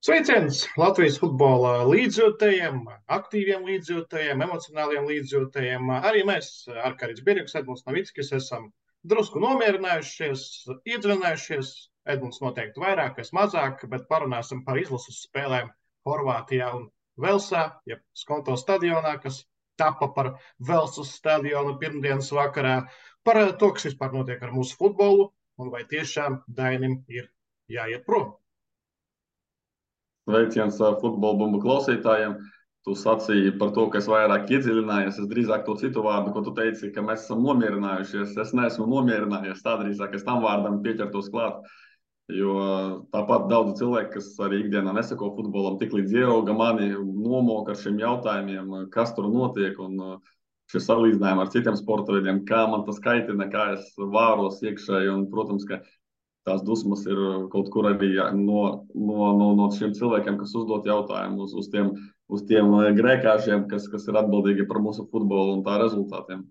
Sveiciens Latvijas futbola līdzjūtējiem, aktīviem līdzjūtējiem, emocionāliem līdzjūtējiem. Arī mēs, Arkārīts Birjuks, Edmunds Novickis, esam drusku nomierinājušies, iedziļinājušies. Edmunds noteikti vairāk, es mazāk, bet parunāsim par izlases spēlēm Horvātijā un Velsā, jeb Skonto stadionā, kas tapa par Velsas stadionu pirmdienas vakarā, par to, kas vispār notiek ar mūsu futbolu un vai tiešām Dainim ir jāiet prom. Sveiciens futbola bumbu klausītājiem. Tu sacīji par to, ka es vairāk iedziļinājos. Es drīzāk to citu vārdu, ko tu teici, ka mēs esam nomierinājušies. Es neesmu nomierinājies. Tā drīzāk es tam vārdam pieķertos klāt. Jo tāpat daudzi cilvēki, kas arī ikdienā nesako futbolam, tik līdz ierauga mani, nomoka ar šiem jautājumiem, kas tur notiek. Un šie salīdzinājumi ar citiem sporta veidiem, kā man tas kaitina, kā es vāros iekšēji. Un, protams, ka tās dusmas ir kaut kur arī no šiem cilvēkiem, kas uzdod jautājumus uz tiem grēkāšiem, kas ir atbildīgi par mūsu futbolu un tā rezultātiem.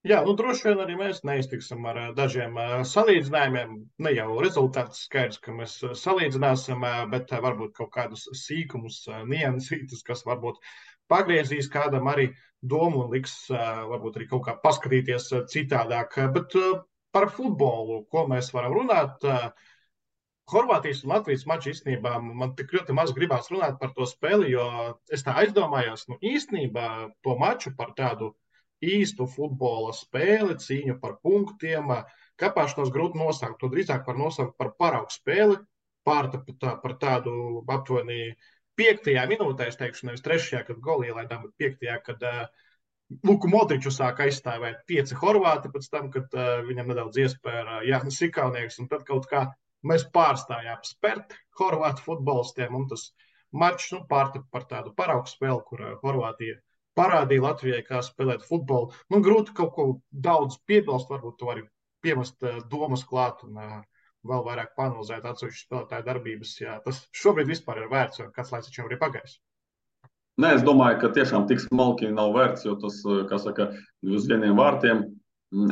Jā, droši vien arī mēs neiztiksim ar dažiem salīdzinājumiem. Ne jau rezultāts skaidrs, ka mēs salīdzināsim, bet varbūt kaut kādus sīkumus, niansītus, kas varbūt pagriezīs kādam arī domu un liks varbūt arī kaut kā paskatīties citādāk. Bet par futbolu, ko mēs varam runāt. Horvātijas un Latvijas maču īstenībā man tik ļoti maz gribās runāt par to spēli, jo es tā aizdomājos, īstenībā to maču par tādu īstu futbola spēli, cīņu par punktiem, kāpāšanos grūti nosaukt. To drīzāk var nosaukt par paraugu spēli, par tādu aptuveni 5. minūtē, es teikšu, nevis 3., kad goli ielaidām, bet 5., kad Luku Modriču sāk aizstāvēt 5 horvāti pēc tam, kad viņam nedaudz iespēja Jānis Ikaunieks, un tad kaut kā mēs pārstājām spērt horvātu futbolistiem, un tas mačs pārtapa par tādu paraugu spēli, kur Horvātija parādīja Latvijai, kā spēlēt futbolu. Grūti kaut ko daudz piebilst, varbūt to arī piemest domas klāt un vēl vairāk panalizēt atsevišķu spēlētāju darbības, ja tas šobrīd vispār ir vērts, jo kāds laiks taču jau ir pagājis. Nē, es domāju, ka tiešām tik smalki nav vērts, jo tas, kā saka, uz vieniem vārtiem.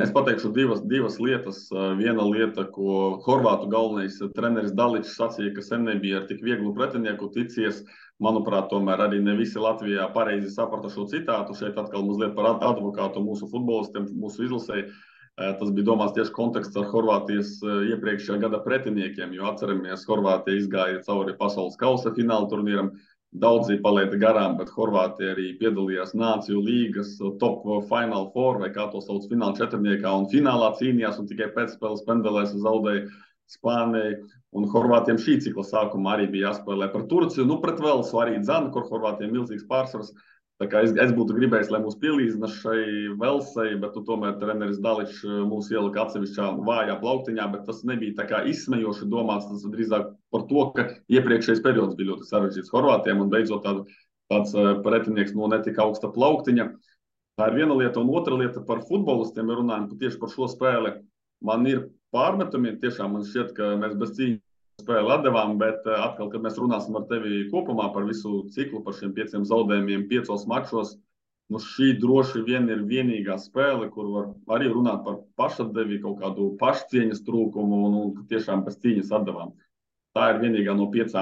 Es pateikšu divas lietas. Viena lieta, ko horvātu galvenais treneris Daličs sacīja, ka sen nebija ar tik vieglu pretinieku ticies. Manuprāt, tomēr arī ne visi Latvijā pareizi saprata šo citātu. Šeit atkal mazliet par advokātu mūsu futbolistiem, mūsu izlasēji. Tas bija domāts tieši konteksts ar Horvātijas iepriekšējā gada pretiniekiem, jo atceramies, Horvātija izgāja cauri pasaules kausa fināla turnīram. Daudzi palaida garām, bet Horvātija arī piedalījās Nāciju līgas top Final Four, vai kā to sauc, fināla četrniekā, un finālā cīnījās, un tikai pēcspēles pendelēs zaudēja Spānijai. Un Horvātiem šī cikla sākumā arī bija jāspēlē par Turciju, pret Velsu arī dzana, kur Horvātiem milzīgs pārsvars. Tā kā es būtu gribējis, lai mūs pielīdzina šai Velsai, bet tomēr treneris Daličs mūs ielika atsevišķā vājā plauktiņā, bet tas nebija tā kā izsmejoši domāts, tas drīzāk par to, ka iepriekšējais periods bija ļoti sarežģīts Horvātiem un beidzot tāds pretinieks no netika augsta plauktiņa. Tā ir viena lieta, un otra lieta par futbolistiem, ja runājam tieši par šo spēli. Man ir pārmetumi, tiešām man šķiet, ka mēs bez cīņas spēli atdevām, bet atkal, kad mēs runāsim ar tevi kopumā par visu ciklu, par šiem 5 zaudējumiem 5 mačos, šī droši vien ir vienīgā spēle, kur var arī runāt par pašatdevi, kaut kādu pašcieņas trūkumu un tiešām bez cīņas atdevām. Tā ir vienīgā no 5.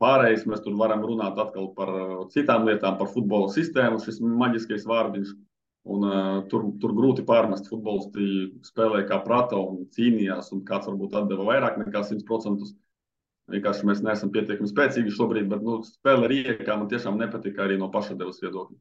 Pārējais mēs tur varam runāt atkal par citām lietām, par futbola sistēmu, šis maģiskais vārdiņš. Un tur grūti pārmest. Futbolisti spēlēja kā prata un cīnījās, un kāds varbūt atdeva vairāk nekā 100%. Vienkārši mēs neesam pietiekami spēcīgi šobrīd, bet spēle Rijekā man tiešām nepatika arī no pašatdevas viedokļa.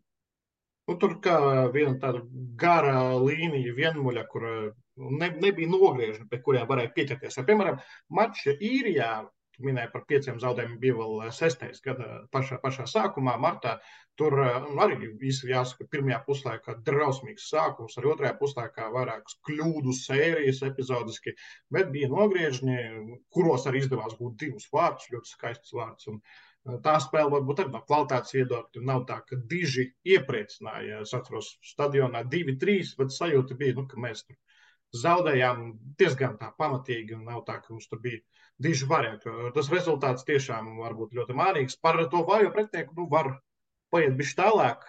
Tur kā viena tāda gara līnija vienmuļa, kur nebija nogriežņi, pie kuriem varēja pieķerties. Piemēram, mačs Īrijā, minēja par 5 zaudējumiem, bija vēl 6. gada pašā sākumā, martā. Tur arī jāsaka, pirmajā puslaikā drausmīgs sākums, arī otrajā puslaikā vairākas kļūdu sērijas epizodiski, bet bija nogriežņi, kuros arī izdevās būt 2 vārdus, ļoti skaists vārds. Un tā spēle varbūt arī no kvalitātes viedokļa nav tā, ka diži iepriecināja. Es atceros stadionā 2-3, bet sajūta bija, ka mēs tur zaudējām diezgan tā pamatīgi, un nav tā, ka mums tur bija diži varianti. Tas rezultāts tiešām var būt ļoti mārīgs. Par to vājo pretinieku var paiet bišķi tālāk,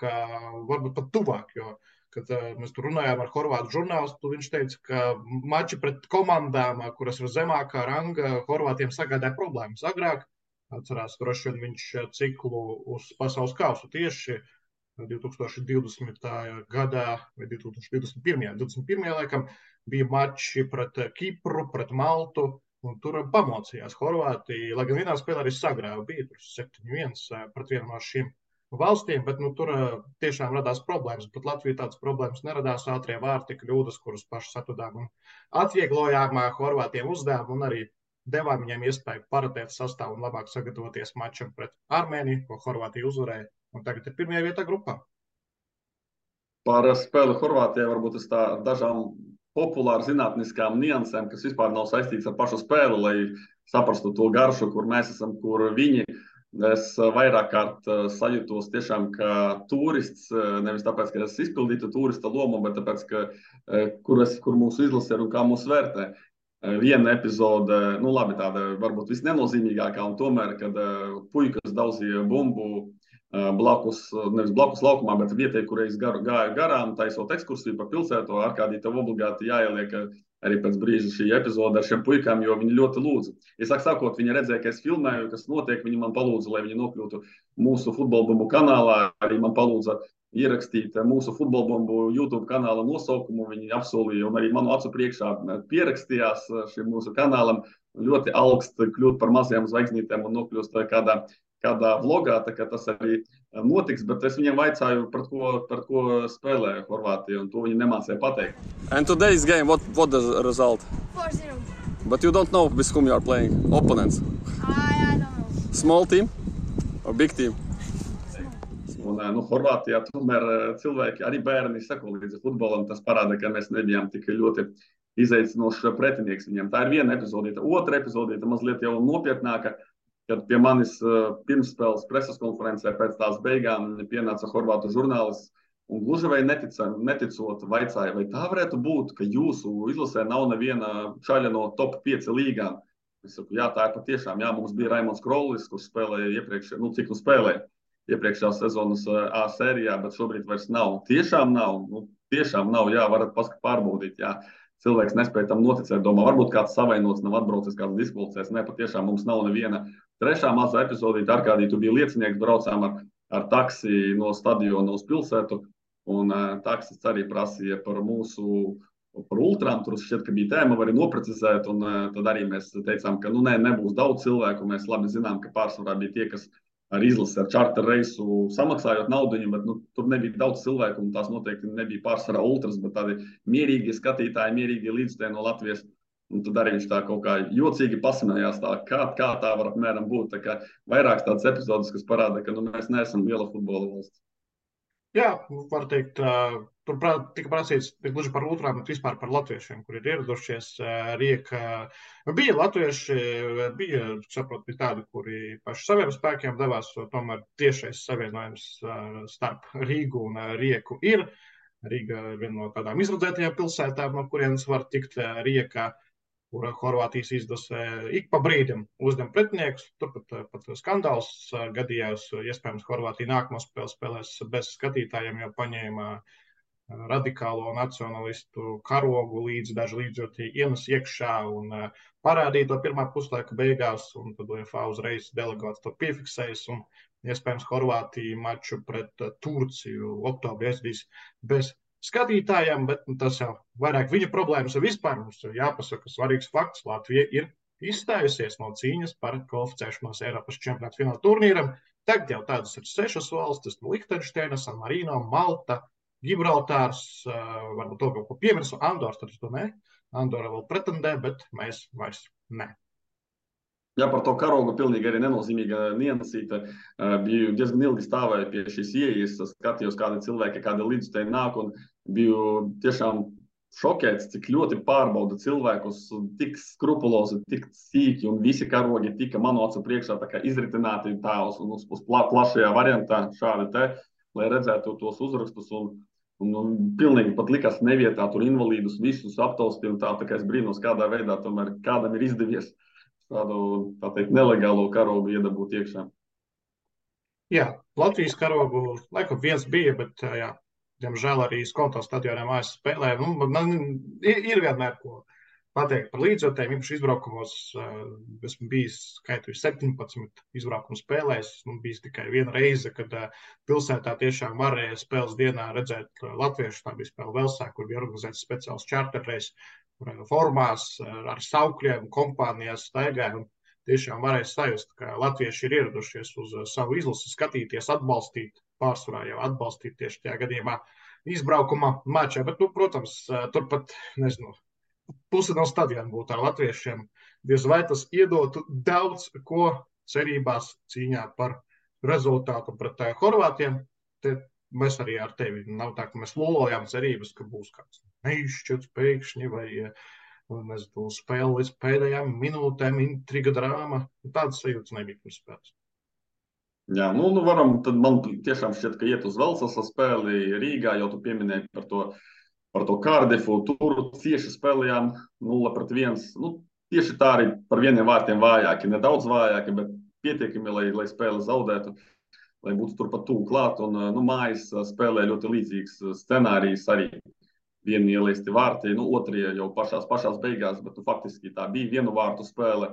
varbūt pat tuvāk, jo, kad mēs tur runājām ar horvātu žurnālistu, viņš teica, ka mači pret komandām, kuras ir zemākā ranga, horvātiem sagādāja problēmas. Agrāk Atcerās, droši vien viņš ciklu uz pasaules kausu tieši 2020. gadā vai 2021. Laikam bija mači pret Kipru, pret Maltu, un tur pamocījās Horvātija, lai gan vienā spēlē arī sagrāva, bija tur 7-1 pret vienu no šīm valstīm, bet tur tiešām radās problēmas. Pat Latvijā tādas problēmas neradās, ātrie vārti, kļūdas, kuras paši atradām un atvieglojām Horvātiem uzdevumu un arī devām viņiem iespēju paratēt sastāvu un labāk sagatavoties mačam pret Armēniju, ko Horvātija uzvarēja, un tagad ir pirmajā vietā grupā. Par spēli Horvātijai varbūt es tā dažām populāru zinātniskām niansēm, kas vispār nav saistīts ar pašu spēli, lai saprastu to garšu, kur mēs esam, kur viņi. Es vairāk kārt sajūtos tiešām kā turists, nevis tāpēc, ka es izpildītu turista lomu, bet tāpēc, ka kur mūsu izlase ir un kā mūs vērtē. Viena epizode, nu labi, tāda varbūt visnenozīmīgākā, un tomēr, kad puikas daudzīja bumbu nevis blakus laukumā, bet vietē, kur es gāju garām, taisot ekskursiju pa pilsētu, Arkādī tev obligāti jāieliek arī pēc brīža šī epizode ar šiem puikām, jo viņi ļoti lūdza. Iesāk sakot, viņi redzēja, ka es filmēju, kas notiek, viņi man palūdza, lai viņi nokļūtu mūsu futbolbumbu kanālā, arī man palūdza ierakstīt mūsu futbolbumbu YouTube kanāla nosaukumu, viņi apsolīja un arī manu acu priekšā pierakstījās šim mūsu kanālam, ļoti augst kļūt par mazajām zvaigznītēm un nokļūst kādā vlogā, tā kā tas arī notiks, bet es viņiem vaicāju, par ko spēlē Horvātija, un to viņi nemācīja pateikt. And today's game, what the result? 4-0. But you don't know with whom you are playing, opponents. I don't know. Small team or big team? Un, Horvātijā tomēr cilvēki, arī bērni sako līdzi futbolam, tas parāda, ka mēs nebijām tik ļoti izaicinošs pretinieks viņiem. Tā ir viena epizodīta. Otra epizodīta mazliet jau nopietnāka, kad pie manis pirmsspēles preses konferencē pēc tās beigām pienāca horvātu žurnālists un gluži vai neticot vaicāja, vai tā varētu būt, ka jūsu izlasē nav neviena čaļa no top 5 līgām. Es saku, jā, tā ir patiešām. Jā, mums bija Raimons Krollis, kurš spēlēja iepriekšējā sezonas A sērijā, bet šobrīd vairs nav. Tiešām nav. Tiešām nav, jā, varat pārbaudīt, jā. Cilvēks nespēja tam noticēt, domā, varbūt kāds savainots, nav atbraucis, kāds diskvalificēs. Nē, patiešām mums nav neviena. Trešā mazā epizodīte, Arkādī, tu biji liecinieks, braucām ar taksi no stadiona uz pilsētu, un taksis arī prasīja par ultrām, tur šķiet, ka bija tēma, var arī noprecizēt, un tad arī mēs teicām, ka nebūs daudz cilvēku, mēs labi zinām, ka pārsvarā bija tie, kas ar izlasi, ar čarter reisu samaksājot naudiņu, bet tur nebija daudz cilvēku, un tās noteikti nebija pārsvarā ultras, bet tādi mierīgi skatītāji, mierīgi līdzstēji no Latvijas. Un tad arī viņš tā kaut kā jocīgi pasmējās, kā tā var apmēram būt. Tā kā vairākas tādas epizodes, kas parāda, ka mēs neesam liela futbola valsts. Jā, var teikt, tur tika prasīts gluži par ultrām, bet vispār par latviešiem, kuri ir ieradušies. Rieka bija latvieši, bija tādi, kuri paši saviem spēkiem devās, tomēr tiešais savienojums starp Rīgu un Rieku ir. Rīga ir viena no tādām izradzētajām pilsētām, no kurienes var tikt Riekā, kur Horvātijas izlase ik pa brīdim uzņem pretiniekus. Tur pat skandāls gadījās. Iespējams, Horvātija nākamo spēli spēlēs bez skatītājiem, jo paņēma radikālo nacionalistu karogu līdzi, daži līdzjūtīgi ienes iekšā un parādīja to pirmā puslaika beigās, un tad UEFA uzreiz delegāts to piefiksējas, un iespējams Horvātija maču pret Turciju oktobrī aizdīs bez skatītājiem, bet tas jau vairāk viņa problēmas ir vispār. Mums ir jāpasaka svarīgs fakts. Latvija ir izstājusies no cīņas par kvalificēšanos Eiropas čempionāta fināla turnīram. Tagad jau tādas ir 6 valstis - Lihtenšteina, San Marino, Malta, Gibraltārs, varbūt to kaut ko piemirsu, Andors, tad to ne. Andora vēl pretendē, bet mēs vairs ne. Jā, par to karogu pilnīgi arī nenozīmīga niansīte. Biju diezgan ilgi stāvēju pie šīs ieejas, skatījos, kādi cilvēki, kādi līdzstēji nāk, un biju tiešām šokēts, cik ļoti pārbauda cilvēkus, tik skrupulozi, tik sīki, un visi karogi tika manu acu priekšā tā kā izritināti tā uz plašajā variantā, šādi te, lai redzētu tos uzrakstus, un pilnīgi pat likās nevietā tur invalīdus visus aptausti, un tā kā es brīnos, kādā veidā tomēr kādam ir izdevies tādu, tā teikt, nelegālo karogu iedabūt iekšā. Jā, Latvijas karogu laikam viens bija, bet diemžēl arī Skonto stadionā mājas spēlē. Ir vienmēr ko pateikt par līdzjutējiem. Īpaši izbraukumos esmu bijis skaitu 17 izbraukumu spēlēs. Man bija tikai viena reize, kad pilsētā tiešām varēja spēles dienā redzēt latviešu. Tā bija spēle Velsā, kur bija organizēts speciāls čārterreis, kur formās ar saukļiem, kompānijās staigāja. Tiešām varēja sajust, ka latvieši ir ieradušies uz savu izlasi, skatīties, atbalstīt, pārsvarā jau atbalstīt tieši tajā gadījumā izbraukuma mačā. Bet, protams, turpat, nezinu, pusi no stadiona būtu ar latviešiem. Diez vai tas iedotu daudz ko cerībās cīņā par rezultātu pret Horvātiem. Te mēs arī ar tevi nav tā, ka mēs lolojām cerības, ka būs kāds neizšķirts pēkšņi vai nezinu, spēle līdz pēdējām minūtēm, intriga, drāma. Tādas sajūtas nebija pirms spēles. Jā, varam, tad man tiešām šķiet, ka iet uz Velsas spēli Rīgā, jau tu pieminēji par to Kārdifu. Tur cieši spēlējām 0-1. Tieši tā arī par vieniem vārtiem vājāki, nedaudz vājāki, bet pietiekami, lai spēli zaudētu, lai būtu turpat tuvu klāt. Un mājas spēlē ļoti līdzīgs scenārijs arī. Vieni ielaisti vārti, otrie jau pašās beigās, bet faktiski tā bija vienu vārtu spēle.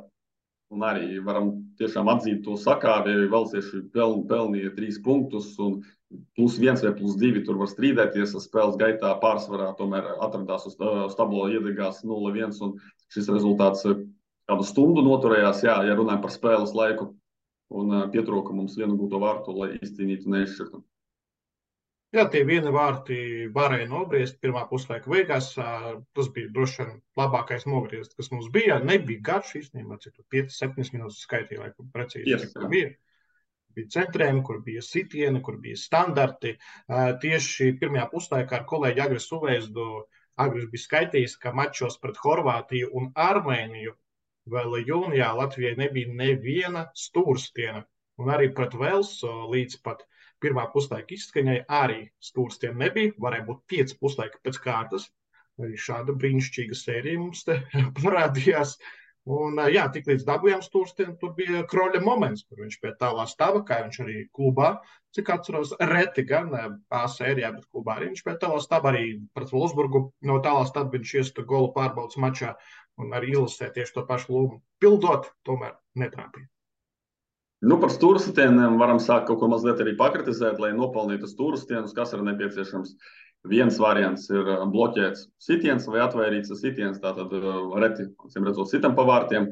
Un arī varam tiešām atzīt to sakāvi, velsieši pelnīja 3 punktus, un +1 vai +2 tur var strīdēties. Spēles gaitā pārsvarā tomēr atradās uz tablo iedegās 0-1, un šis rezultāts kādu stundu noturējās, ja runājam par spēles laiku, un pietrūka mums vienu gūto vārtu, lai izcīnītu neizšķirtu. Jā, tie vieni vārti varēja nobriest pirmā puslaika beigās. Tas bija droši vien labākais nogriezts, kas mums bija. Nebija garš īstenībā, cik 5-7 minūtes skaitīja, lai precīzi cik bija. Bija centrējumi, kur bija sitieni, kur bija standarti. Tieši pirmajā puslaikā ar kolēģi Agris Uveizdu Agris bija skaitījis, ka mačos pret Horvātiju un Armēniju vēl jūnijā Latvijai nebija neviena stūrstiena. Un arī pret Velsu līdz pat pirmā puslaika izskaņai arī stūrstiem nebija. Varēja būt 5 puslaika pēc kārtas. Arī šāda brīnišķīga sērija mums te parādījās. Un jā, tik līdz dabūjām stūrstiem, tur bija Kroļa moments, kur viņš pie tālā stava, kā viņš arī klubā, cik atceros, reti gan A sērijā, bet klubā arī viņš pie tālā stava, arī pret Wolfsburgu no tālā stava viņš iesta golu pārbaudas mačā un arī ilusē tieši to pašu lomu pildot, tomēr netrāpīja. Par stūrstieniem varam sākt kaut ko mazliet arī pakritizēt, lai nopelnītu stūrstienus, kas ir nepieciešams. Viens variants ir bloķēts sitiens vai atvairīts sitiens, tātad reti, redzot, sitam pa vārtiem.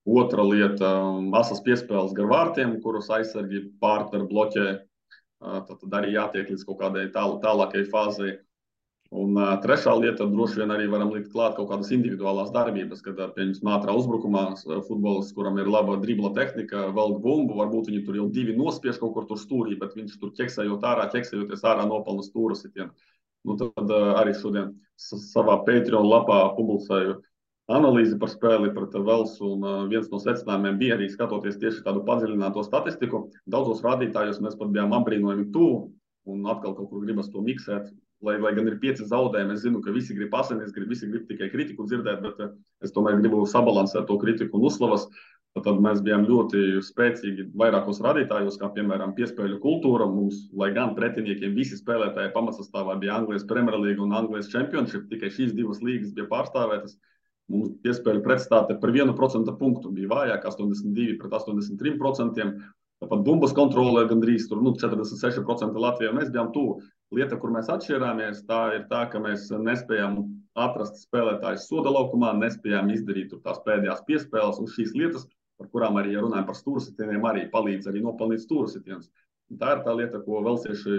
Otra lieta – asas piespēles gar vārtiem, kurus aizsargi partneri bloķē. Tad arī jātiek līdz kaut kādai tālākai fāzei. Un trešā lieta – droši vien arī varam likt klāt kaut kādas individuālās darbības, kad pieņemsim ātrā uzbrukumā futbolists, kuram ir laba dribla tehnika, velk bumbu, varbūt viņi tur jau 2 nospiež kaut kur tur stūrī, bet viņš tur ķeksējoties ārā nopelna stūra sitienu. Tad arī šodien savā Patreon lapā publicēju analīzi par spēli pret Velsu, un viens no secinājumiem bija arī skatoties tieši tādu padziļināto statistiku. Daudzos rādītājos mēs pat bijām apbrīnojami tuvu, un atkal kaut kur gribas to miksēt. Lai gan ir 5 zaudējumi, es zinu, ka visi grib asinis, visi grib tikai kritiku dzirdēt, bet es tomēr gribu sabalansēt to kritiku un uzslavas. Tad mēs bijām ļoti spēcīgi vairākos rādītājos, kā piemēram piespēļu kultūra. Mums, lai gan pretiniekiem visi spēlētāji pamatsastāvā bija Anglijas Premier League un Anglijas Championship, tikai šīs 2 līgas bija pārstāvētas. Mums piespēļu pretstāte par 1% punktu bija vājāk, 82 pret 83%. Tāpat bumbas kontrolē gandrīz 46% Latvijā. Mēs bijām tuvu. Lieta, kur mēs atšķirāmies, tā ir tā, ka mēs nespējām atrast spēlētājus soda laukumā, nespējām izdarīt tās pēdējās piespēles, un šīs lietas, par kurām arī runājam par stūrsitieniem, arī palīdz arī nopelnīt stūrsitienus. Tā ir tā lieta, ko velsieši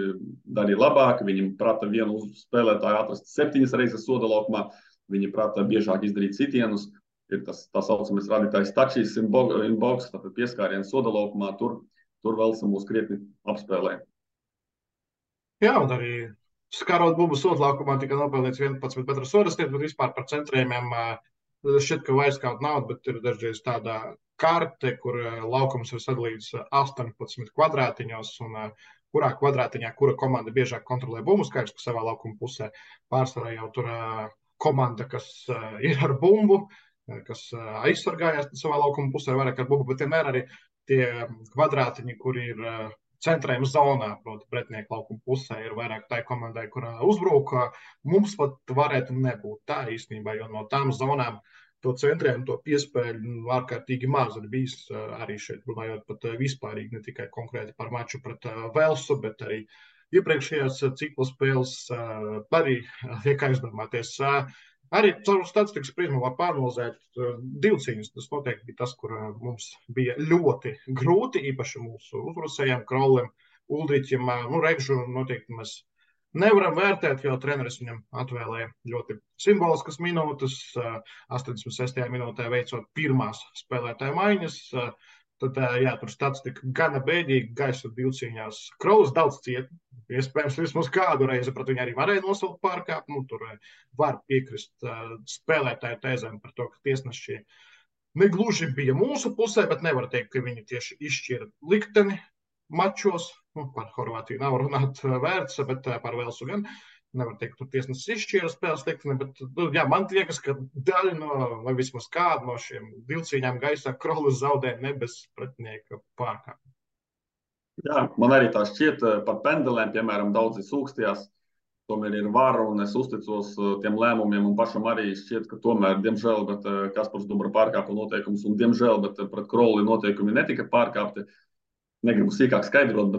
darīja labāk. Viņi prata vienu spēlētāju atrast 7 reizes soda laukumā, viņi prata biežāk izdarīt sitienus. Ir tas tā saucamais rādītājs touches in box, tātad pieskāriens soda laukumā, tur Velsa mūs krietni apspēlē. Jā, un arī skarot bumbu sodlaukumā tika nopelnīts 11 metru sodastiet, bet vispār par centrējumiem šķiet, ka vairs kaut nav, bet ir dažreiz tāda karte, kur laukums ir sadalīts 18 kvadrātiņos, un kurā kvadrātiņā kura komanda biežāk kontrolē bumbu, skaidrs, ka savā laukuma pusē pārsvarā jau tur komanda, kas ir ar bumbu, kas aizsargājās savā laukuma pusē vairāk ar bumbu, bet vienmēr arī tie kvadrātiņi, kur ir centrējuma zonā, proti pretinieku laukuma pusē, ir vairāk tai komandai, kurā uzbrūk. Mums pat varētu nebūt tā īstenībā, jo no tām zonām to centrēm, to piespēļu ārkārtīgi maz ir bijis arī šeit, runājot pat vispārīgi, ne tikai konkrēti par maču pret Velsu, bet arī iepriekšējās cikla spēles arī liek aizdomāties. Arī caur statistikas prizmu var pāranalizēt divcīņas. Tas noteikti bija tas, kur mums bija ļoti grūti, īpaši mūsu uzbrucējiem, Krolim, Uldriķim. Regžu noteikti mēs nevaram vērtēt, jo treneris viņam atvēlēja ļoti simboliskas minūtes. 86. minūtē veicot pirmās spēlētāju maiņas. Tad, tur statistika gana bēdīga, gaisa divcīņās. Krolis daudz cieta. Iespējams, vismaz kādu reizi pret viņu arī varēja nosaukt pārkāpumu. Tur var piekrist spēlētāju tēzēm par to, ka tiesneši negluži bija mūsu pusē, bet nevar teikt, ka viņi tieši izšķira likteni mačos. Par Horvātiju nav runāt vērts, bet par Velsu gan. Nevar teikt, ka tiesnesis izšķīra spēles likteni, bet man liekas, ka daļa no, vai vismaz kāda no šiem divcīņām gaisā Krolis zaudēja ne bez pretinieka pārkāpumu. Jā, man arī tā šķiet par pendelēm, piemēram, daudzi sūkstījās, tomēr ir vara un es uzticos tiem lēmumiem un pašam arī šķiet, ka tomēr, diemžēl, bet Kaspars Dubra pārkāpa noteikumus un diemžēl, bet pret Kroli noteikumi netika pārkāpti. Negribu sīkāk skaidrot,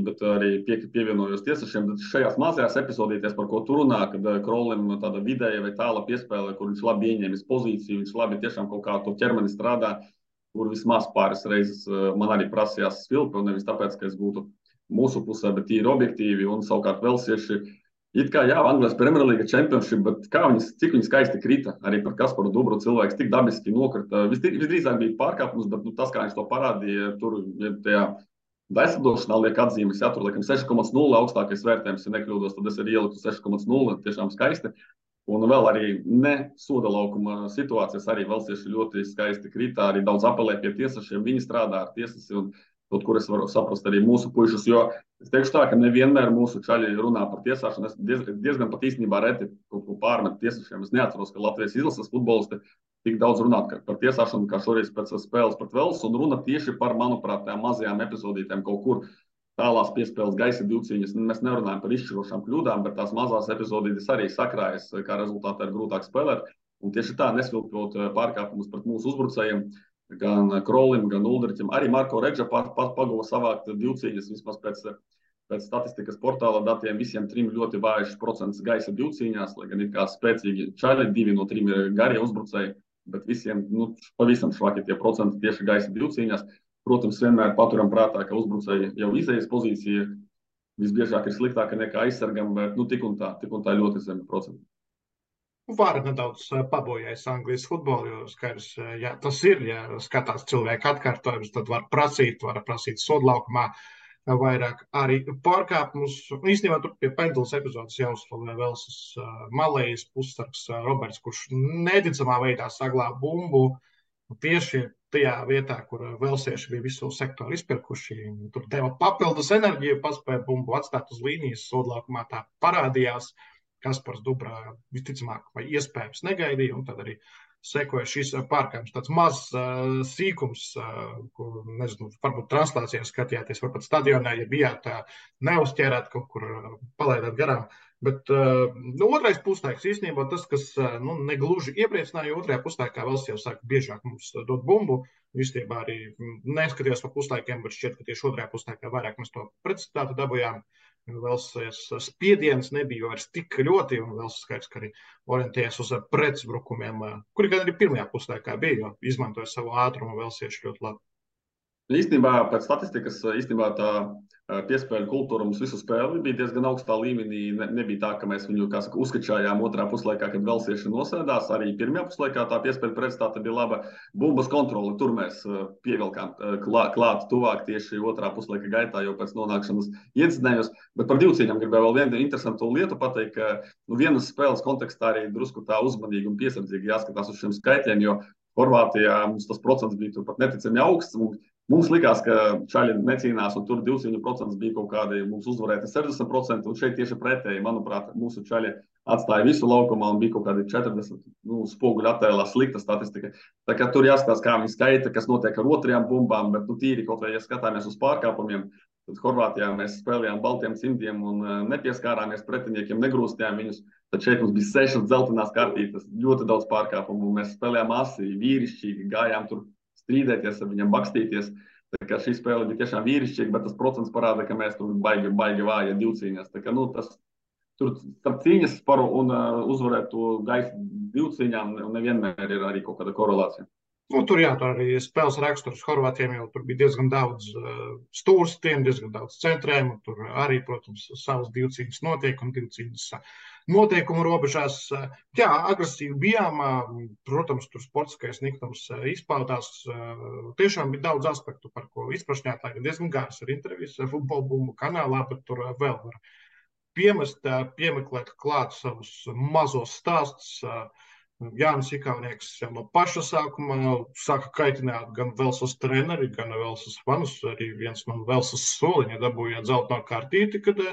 bet arī pievienojos tiesnešiem. Šajās mazajās epizodītēs, par ko tu runā, kad Krolim tāda vidēja vai tāla piespēle, kur viņš labi ieņēmis pozīciju, viņš labi tiešām kaut kā to ķermeni strādā, kur vismaz pāris reizes man arī prasījās svilpi, un nevis tāpēc, ka es būtu mūsu pusē, bet tīri objektīvi, un savukārt velsieši, it kā Anglijas Premjerlīga Championship, bet cik viņi skaisti krita, arī par Kasparu Dubru cilvēks tik dabiski nokrita. Visdrīzāk bija pārkāpums, bet tas, kā viņš to parādīja, tur tajā Daislidošanā liek atzīmes, tur liekam 6,0 augstākais vērtējums, ja nekļūdos, tad es arī ieliku 6,0, tiešām skaisti. Un vēl arī ne soda laukuma situācijas, arī velsieši ļoti skaisti krita, arī daudz apelē pie tiesnešiem, viņi strādā ar tiesnesi un kaut kur es varu saprast arī mūsu puišus, jo es teikšu tā, ka nevienmēr mūsu čaļi runā par tiesāšanu, es diezgan pat īstenībā reti kaut ko pārmet tiesnešiem, es neatceros, ka Latvijas izlases futbolisti tik daudz runāt par tiesāšanu, kā šoreiz pēc spēles pret Velsu, un runa tieši par, manuprāt, tām mazajām epizodītēm kaut kur tālās piespēles gaisa divcīņas. Mēs nerunājam par izšķirošām kļūdām, bet tās mazās epizodītes arī sakrājas, kā rezultātā ir grūtāk spēlēt. Un tieši tā, nesvilkot pārkāpumus pret mūsu uzbrucējiem, gan Krolim, gan Uldriķim, arī Marko Regža pagava savākt divcīņas, vismaz pēc statistikas portāla datiem, visiem trim ļoti vājš procents gaisa divcīņās, lai gan ir kā spēcīgi čaļi, 2 no 3 ir garie uzbrucēji, bet visiem pavisam švaki tie procenti tieši gaisa divcīņās. Protams, vienmēr paturam prātā, ka uzbrucēji jau izējas pozīcija visbiežāk ir sliktāka nekā aizsargam, bet tik un tā ļoti zemi procenti. Var nedaudz pabojājis Anglijas futbolu, jo skaidrs, ja tas ir, ja skatās cilvēku atkārtojums, tad var prasīt sodlaukumā vairāk arī pārkāpumus. Īstenībā tur pie pendulas epizodes jāuzslavē Velsas malējas pussargs Roberts, kurš neticamā veidā saglāba bumbu tieši tajā vietā, kur velsieši bija visu sektoru izpirkuši. Tur deva papildus enerģiju, paspēja bumbu atstāt uz līnijas, sodlaukumā tā parādījās. Kaspars Dubra visticamāk vai iespējams negaidīja, un tad arī sekoja šis pārkāpums. Tāds mazs sīkums, ko, nezinu, varbūt translācijā skatījāties, varbūt stadionā, ja bijāt neuzķērāt, kaut kur palaidāt garām. Bet otrais puslaiks īstenībā tas, kas negluži iepriecināja, otrajā puslaikā Vels jau sāka biežāk mums dot bumbu. Īstenībā arī neskatījos par puslaikiem, bet šķiet, ka tieši otrajā puslaikā vairāk mēs to precizitāti dabūjām. Velsas spiediens nebija vairs tik ļoti, un Velsas skaidrs, ka arī orientējas uz pretuzbrukumiem, kuri gan arī pirmajā puslaikā bija, jo izmantoja savu ātrumu velsieši ļoti labi. Īstenībā pēc statistikas tā piespēļu kultūra mums visu spēli bija diezgan augstā līmenī. Nebija tā, ka mēs viņu uzskačājām otrā puslaikā, kad velsieši nosēdās. Arī pirmajā puslaikā tā piespēļu precizitāte bija laba. Bumbas kontrole, tur mēs pievilkām klāt tuvāk tieši otrā puslaika gaitā, jau pēc nonākšanas iedzinējos. Bet par divcīņām gribēju vēl vienu interesantu lietu pateikt, ka vienas spēles kontekstā arī drusku tā uzmanīgi un piesardzīgi jāskatās uz šiem skaitļiem, jo Horvātijā mums tas procents bija turpat neticami augsts. Mums likās, ka čaļi necīnās, un tur divcīņu procents bija kaut kādi mums uzvarēti 60%, un šeit tieši pretēji, manuprāt, mūsu čaļi atstāja visu laukumā un bija kaut kādi 40 spoguļu attēlā slikta statistika. Tā kā tur jāskatās, kā viņi skaita, kas notiek ar otrajām bumbām, bet tīri kaut vai, ja skatāmies uz pārkāpumiem, Tad Horvātijā mēs spēlējām baltiem cimdiem un nepieskārāmies pretiniekiem, negrūstījām viņus. Tad šeit mums bija 6 dzeltenās kartītes, ļoti daudz pārkāpumu. Mēs spēlējām asi, vīrišķīgi, gājām tur strīdēties ar viņiem, bakstīties. Tā kā šī spēle bija tiešām vīrišķīga, bet tas procents parāda, ka mēs tur baigi vāja divcīņās. Tā kā, tur starp cīņas paru un uzvarēt to gaisu divcīņām nevienmēr ir arī kaut kāda korelācija. Tur arī spēles raksturs Horvātiem jau tur bija diezgan daudz stūrstiem, diezgan daudz centrējumu. Tur arī, protams, savas divcīņas notiek un divcīņas noteikumu robežās. Jā, agresīvi bijām. Protams, tur sportiskais niktums izpaudās. Tiešām bija daudz aspektu, par ko izprašņāt. Lai diezgan gārs ar intervijas Futbola Bumbu kanālā, bet tur vēl var piemeklēt klāt savus mazos stāstus. Jānis Ikaunieks jau no paša sākuma sāka kaitināt gan Velsas treneri, gan Velsas fanus. Arī viens no Velsas soliņa dabūja dzelteno kartīti, kad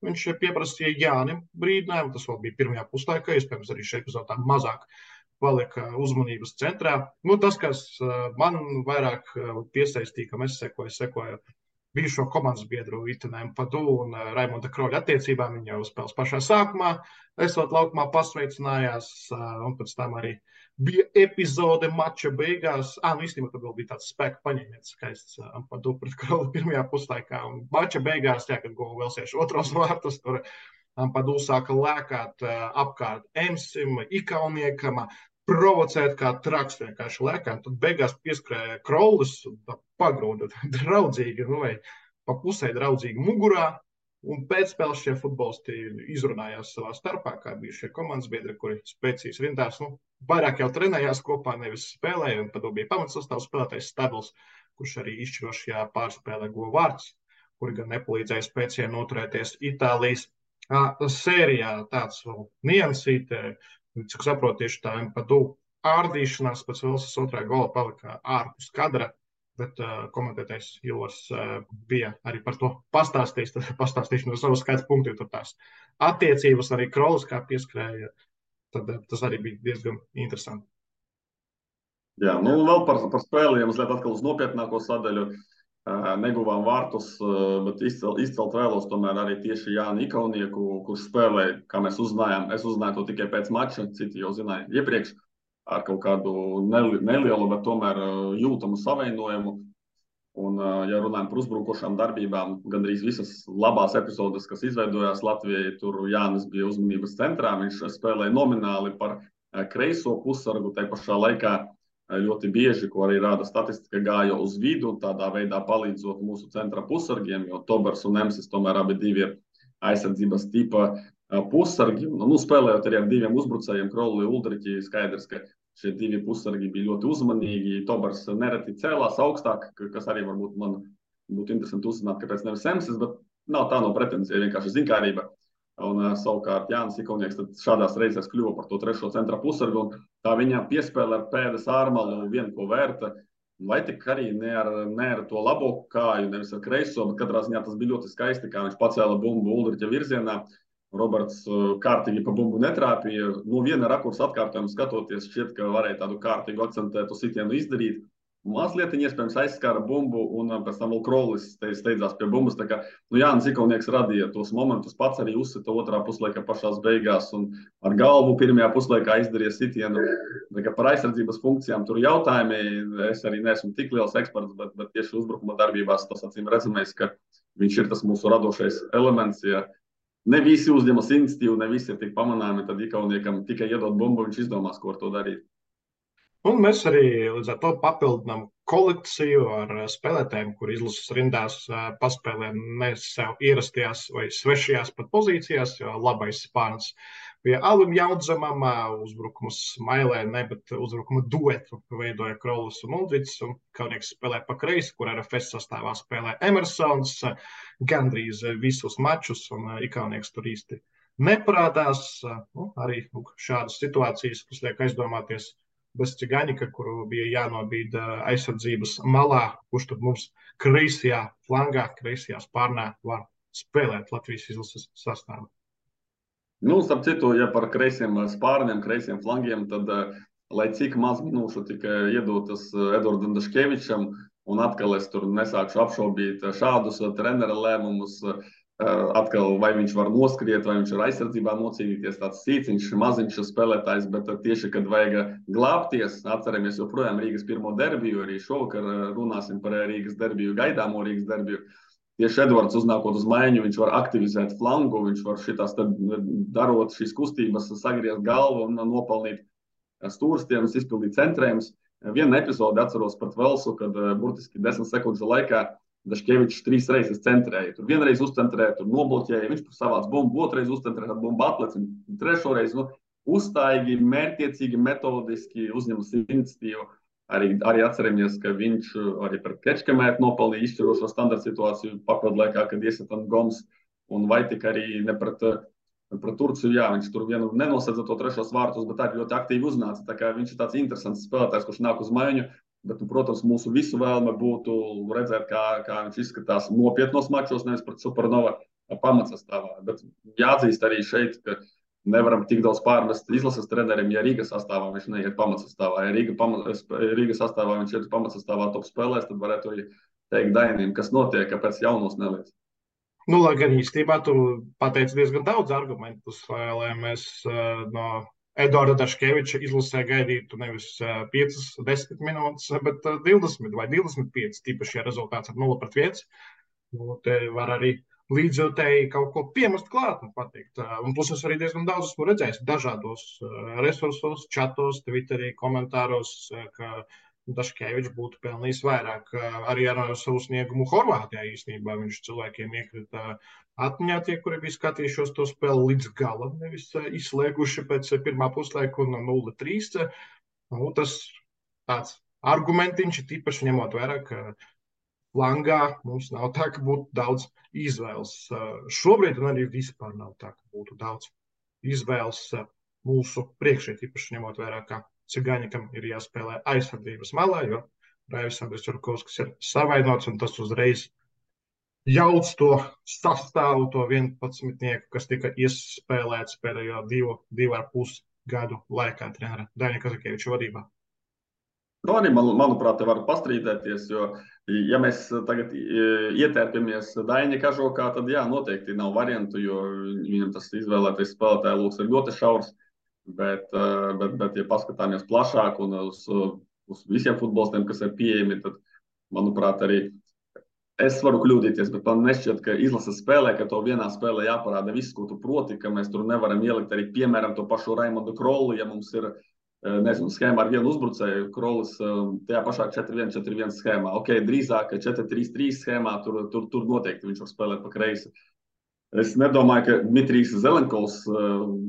viņš pieprasīja Jānim brīdinājumu. Tas vēl bija pirmajā puslaikā, iespējams arī šeit epizodā mazāk palika uzmanības centrā. Tas, kas man vairāk piesaistīja, kam es sekoju bijušo komandas biedru Itanēm Padu un Raimonda Kroļa attiecībām. Viņi jau spēles pašā sākumā, esot laukumā pasveicinājās, un pēc tam arī bija epizode mača beigās. Īstenībā tad vēl bija tāds spēka paņēmiens skaists Padu pret Kroļu pirmajā puslaikā. Un mača beigās, kad guva Velsiešu otros vārtus, tur Padu sāka lēkāt apkārt Emsim, Ikauniekam, provocēt kā traks vienkārši lēkām. Tad beigās pieskrēja Krolis un pagrūda draudzīgi, vai pa pusē draudzīgi mugurā. Un pēc spēles šie futbolisti izrunājās savā starpā, kā bija šie komandas biedri, kuri spēcīs rindās. Vairāk jau trenējās kopā, nevis spēlēja. Un tad bija pamatsastāvs spēlētājs Stabils, kurš arī izšķirošajā pārspēlē guva vārds, kuri gan nepalīdzēja spēcīgi noturēties Itālijas sērijā. Tāds vēl niansīte. Cik saprotu, tieši tā Padu ārdīšanās pēc Velsas otrā gola palika ārpus kadra, bet komentētais Ilvars bija arī par to pastāstījis. Tad pastāstīšu no savas skaita punktu, jo tur tās attiecības arī Krolis kā pieskrēja. Tad tas arī bija diezgan interesanti. Jā, vēl par spēli, ja mazliet atkal uz nopietnāko sadaļu. Neguvām vārtus, bet izcelt vēlos tomēr arī tieši Jāni Ikaunieku, kurš spēlēja, kā mēs uzzinājām. Es uzzināju to tikai pēc mača, citi jau zināja iepriekš ar kaut kādu nelielu, bet tomēr jūtamu savienojumu. Un, ja runājam par uzbrukošām darbībām, gandrīz visas labās epizodes, kas izveidojās Latvijai, tur Jānis bija uzmanības centrā. Viņš spēlēja nomināli par kreiso pussargu, tai pašā laikā ļoti bieži, ko arī rāda statistika, gāja uz vidu, tādā veidā palīdzot mūsu centra pussargiem, jo Tobers un Emsis tomēr abi divi ir aizsardzības tipa pussargi. Spēlējot arī ar diviem uzbrucējiem, Krolli un Uldriķi, skaidrs, ka šie divi pussargi bija ļoti uzmanīgi. Tobers nereti cēlās augstāk, kas arī varbūt man būtu interesanti uzzināt, kāpēc nevis Emsis, bet nav tā no pretenzija, vienkārši zinkārība. Un savukārt Jānis Ikaunieks šādās reizēs kļuva par to trešo centra pussargu, un tā viņa piespēle ar pēdas ārmalu vien ko vērta, vai tik arī ne ar to labo kāju, nevis ar kreiso, bet katrā ziņā tas bija ļoti skaisti, kā viņš pacēla bumbu Uldriķa virzienā. Roberts kārtīgi pa bumbu netrāpīja. Viena rakursa atkārtojuma skatoties, šķiet, ka varēja tādu kārtīgu akcentētu sitienu izdarīt. Mazliet iespējams aizskāra bumbu, un pēc tam vēl Krolis steidzās pie bumbas. Tā kā Jānis Ikaunieks radīja tos momentus, pats arī uzsita otrā puslaika pašās beigās un ar galvu pirmajā puslaikā izdarīja sitienu. Tā kā par aizsardzības funkcijām tur jautājumi, es arī neesmu tik liels eksperts, bet tieši uzbrukuma darbībās tas acīm redzamais, ka viņš ir tas mūsu radošais elements. Ja ne visi uzņemas iniciatīvu, ne visi ir tik pamanāmi, tad Ikauniekam tikai iedot bumbu, viņš izdomās, ko ar to darīt. Un mēs arī līdz ar to papildinām kolekciju ar spēlētājiem, kur izlases rindās paspēlē ne sev ierastajās vai svešajās pat pozīcijās, jo labais spārns bija Alim Jaudzemam, uzbrukums Mailē, bet uzbrukuma duetu veidoja Krolis un Uldriķis, un Kaunieks spēlē pa kreisi, kur RFS sastāvā spēlē Emersons gandrīz visus mačus, un Ikaunieks tur īsti neparādās. Arī šādas situācijas, kas liek aizdomāties, bez Cigaņika, kuru bija jānobīd aizsardzības malā, kurš tad mums kreisajā flangā, kreisajā spārnā var spēlēt Latvijas izlases sastāvā. Starp citu, ja par kreisiem spārniem, kreisiem flangiem, tad, lai cik maz minūšu tika iedotas Edvardam Daškevičam, un atkal es tur nesākšu apšaubīt šādus trenera lēmumus. Atkal, vai viņš var noskriet, vai viņš var aizsardzībā nocīnīties, tāds sīciņš, maziņš spēlētājs, bet tieši, kad vajag glābties, atceramies joprojām Rīgas pirmo derbiju, arī šovakar runāsim par Rīgas derbiju, gaidāmo Rīgas derbiju. Tieši Edvards uznākot uz maiņu, viņš var aktivizēt flangu, viņš var šitās tad darot šīs kustības, sagriezt galvu un nopelnīt stūrstienas, izpildīt centrējumus. Vienu epizodi atceros pret Velsu, kad burtiski 10 sekundžu laikā Daškevičs 3 reizes centrēja. Tur vienreiz uzcentrēja, tur nobloķēja, viņš savāc bumbu, otrais uzcentrēja, tad bumba atlec, un trešo reizi uzstājīgi, mērķiecīgi, metodiski uzņemas iniciatīvu. Arī atceramies, ka viņš arī pret Kečkamētu nopelnīja izšķirošo standarta situāciju papildu laikā, kad iesatan Goms, un vai tik arī ne pret Turciju, jā, viņš tur vienu nenosedza to trešos vārtus, bet arī ļoti aktīvi uznāca. Tā kā viņš ir tāds interesants spēlētājs, kurš nāk uz maiņu. Bet, protams, mūsu visu vēlme būtu redzēt, kā viņš izskatās nopietnos mačos, nevis pret Supernova pamatsastāvā. Bet jāatzīst arī šeit, ka nevaram tik daudz pārmest izlases trenerim, ja Rīgas sastāvā viņš neiet pamatsastāvā. Ja Rīgas sastāvā viņš iet pamatsastāvā top spēlēs, tad varētu arī teikt Dainim, kas notiek, kāpēc jaunos neliec. Nu, lai gan īstenībā tu pateici diezgan daudz argumentus, lai mēs no Eduarda Daškeviča izlasē gaidītu nevis 5, 10 minūtes, bet 20 vai 25, tīpaši, ja rezultāts ir 0-1. Nu, te var arī līdzjūtēji kaut ko piemest klāt un pateikt. Un plus es arī diezgan daudz esmu redzējis dažādos resursos, čatos, Twitterī, komentāros, ka Daškevičs būtu pelnījis vairāk arī ar savu sniegumu Horvātijā īstenībā. Viņš cilvēkiem iekrita atmiņā tie, kuri bija skatījušos to spēli līdz galam, nevis izslēguši pēc pirmā puslaika un 0-3. Nu, tas tāds argumentiņš ir tīpaši ņemot vērā, ka flangā mums nav tā, ka būtu daudz izvēles. Šobrīd un arī vispār nav tā, ka būtu daudz izvēles mūsu priekšē, tīpaši ņemot vērā, ka Cigaņikam ir jāspēlē aizsardzības malā, jo Raivis Andris Jurkovskis ir savainots, un tas uzreiz jauc to sastāvu, to 11-nieku, kas tika iespēlēts pēdējo 2,5 gadu laikā trenera Daņa Kazakieviča vadībā. Nu, arī, manuprāt, te var pastrīdēties, jo, ja mēs tagad ietērpjamies Daņa kažokā, tad jā, noteikti nav variantu, jo viņam tas izvēlētais spēlētāja lūks ir ļoti šaurs. Bet, ja paskatāmies plašāk un uz visiem futbolistiem, kas ir pieejami, tad, manuprāt, arī es varu kļūdīties, bet man nešķiet, ka izlases spēlē, ka to vienā spēlē jāparāda viss, ko tu proti, ka mēs tur nevaram ielikt arī, piemēram, to pašu Raimondu Krolu, ja mums ir, nezinu, schēma ar vienu uzbrucēju, Krolis tajā pašā 4-1-4-1 schēmā. Ok, drīzāk 4-3-3 schēmā, tur noteikti viņš var spēlēt pa kreisi. Es nedomāju, ka Dmitrijs Zelenkovs,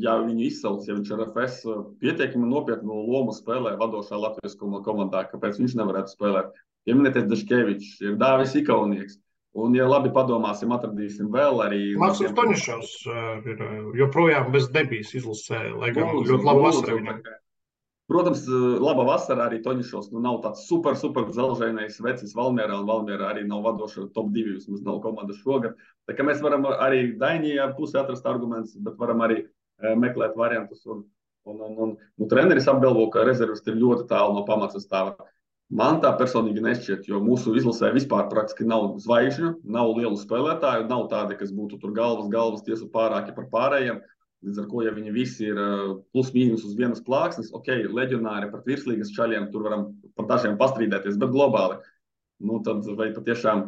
ja viņu izsauc, ja viņš ar FS pietiekami nopietnu lomu spēlē vadošā Latvijas komandā, kāpēc viņš nevarētu spēlēt. Pieminēties Daškevičs, ir Dāvis Ikaunieks. Un, ja labi padomāsim, atradīsim vēl arī... Maksim Toņišovs ir joprojām bez debijas izlasē, lai gan ļoti labu vasaru viņam. Protams, laba vasara arī Toņišovs nav tāds super dzelžainais vecis Valmierā, un Valmierā arī nav vadoša top 2, vismaz nav komandas šogad. Tā kā mēs varam arī Dainijā pusē atrast argumentus, bet varam arī meklēt variantus. Un treneris apgalvo, ka rezervisti ir ļoti tālu no pamatsastāva. Man tā personīgi nešķiet, jo mūsu izlasē vispār praktiski nav zvaigžņu, nav lielu spēlētāju, nav tādi, kas būtu tur galvas tiesu pārāki par pārējiem. Līdz ar ko, ja viņi visi ir plus mīnus uz vienas plāksnes, ok, leģionāri pret virslīgas čaļiem, tur varam par dažiem pastrīdēties, bet globāli, nu tad vai patiešām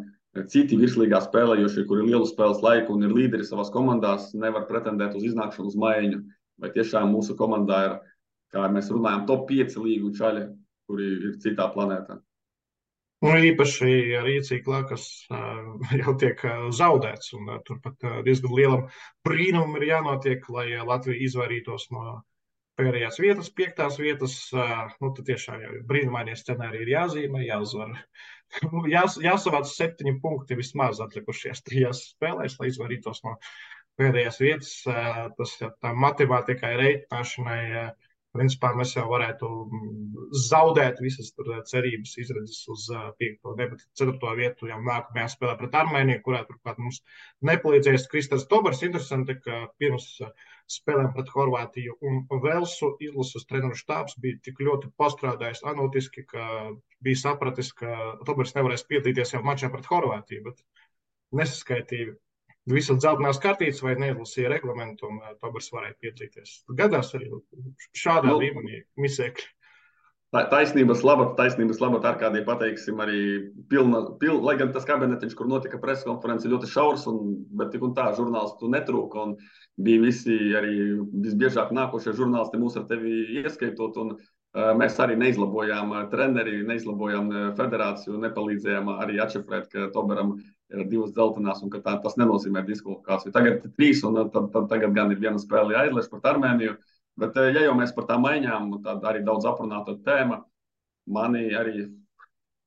citi virslīgā spēlējošie, kuri ir lielu spēles laiku un ir līderi savās komandās, nevar pretendēt uz iznākšanu uz maiņu. Vai tiešām mūsu komandā ir, kā mēs runājam, top 5 līgu čaļi, kuri ir citā planētā. Nu, īpaši ar Rīciklā, kas jau tiek zaudēts, un turpat diezgan lielam brīnumam ir jānotiek, lai Latvija izvairītos no pēdējās vietas, 5. vietas. Nu, tad tiešām jau brīnumainie scenāriji ir jāzīmē, jāuzvar. Jāsavāc 7 punkti vismaz atlikušajās 3 spēlēs, lai izvairītos no pēdējās vietas. Tas tā matemātikai reiķināšanai. Principā mēs jau varētu zaudēt visas cerības izredzes uz 5. bet 4. vietu jau nākamajā spēlē pret Armēniju, kurā turklāt mums nepalīdzēs Kristers Tobers. Interesanti, ka pirms spēlēm pret Horvātiju un Velsu izlases treneru štābs bija tik ļoti pastrādājis analītiski, ka bija sapratis, ka Tobers nevarēs piedalīties jau mačā pret Horvātiju, bet nesaskaitīja visas dzeltenās kartītes vai neizlasīja reglamentu, un Tobers varēja piedalīties. Gadās arī šādā līmenī misēkļi. Taisnības labāk Arkādija pateiksim arī lai gan tas kabinetiņš, kur notika preskonference, ļoti šaurs, bet tik un tā žurnālistu netrūka, un bija visi arī visbiežāk nākošie žurnālisti mūs ar tevi ieskaitot, un mēs arī neizlabojām treneri, neizlabojām federāciju, nepalīdzējām arī atšifrēt, ka Toberam ir 2 dzeltenās, un ka tas nenozīmē diskvalifikāciju. Tagad 3, un tagad gan ir viena spēle jāizlaiž pret Armēniju. Bet, ja jau mēs par tām maiņām, tad arī daudz aprunāta tēma, mani arī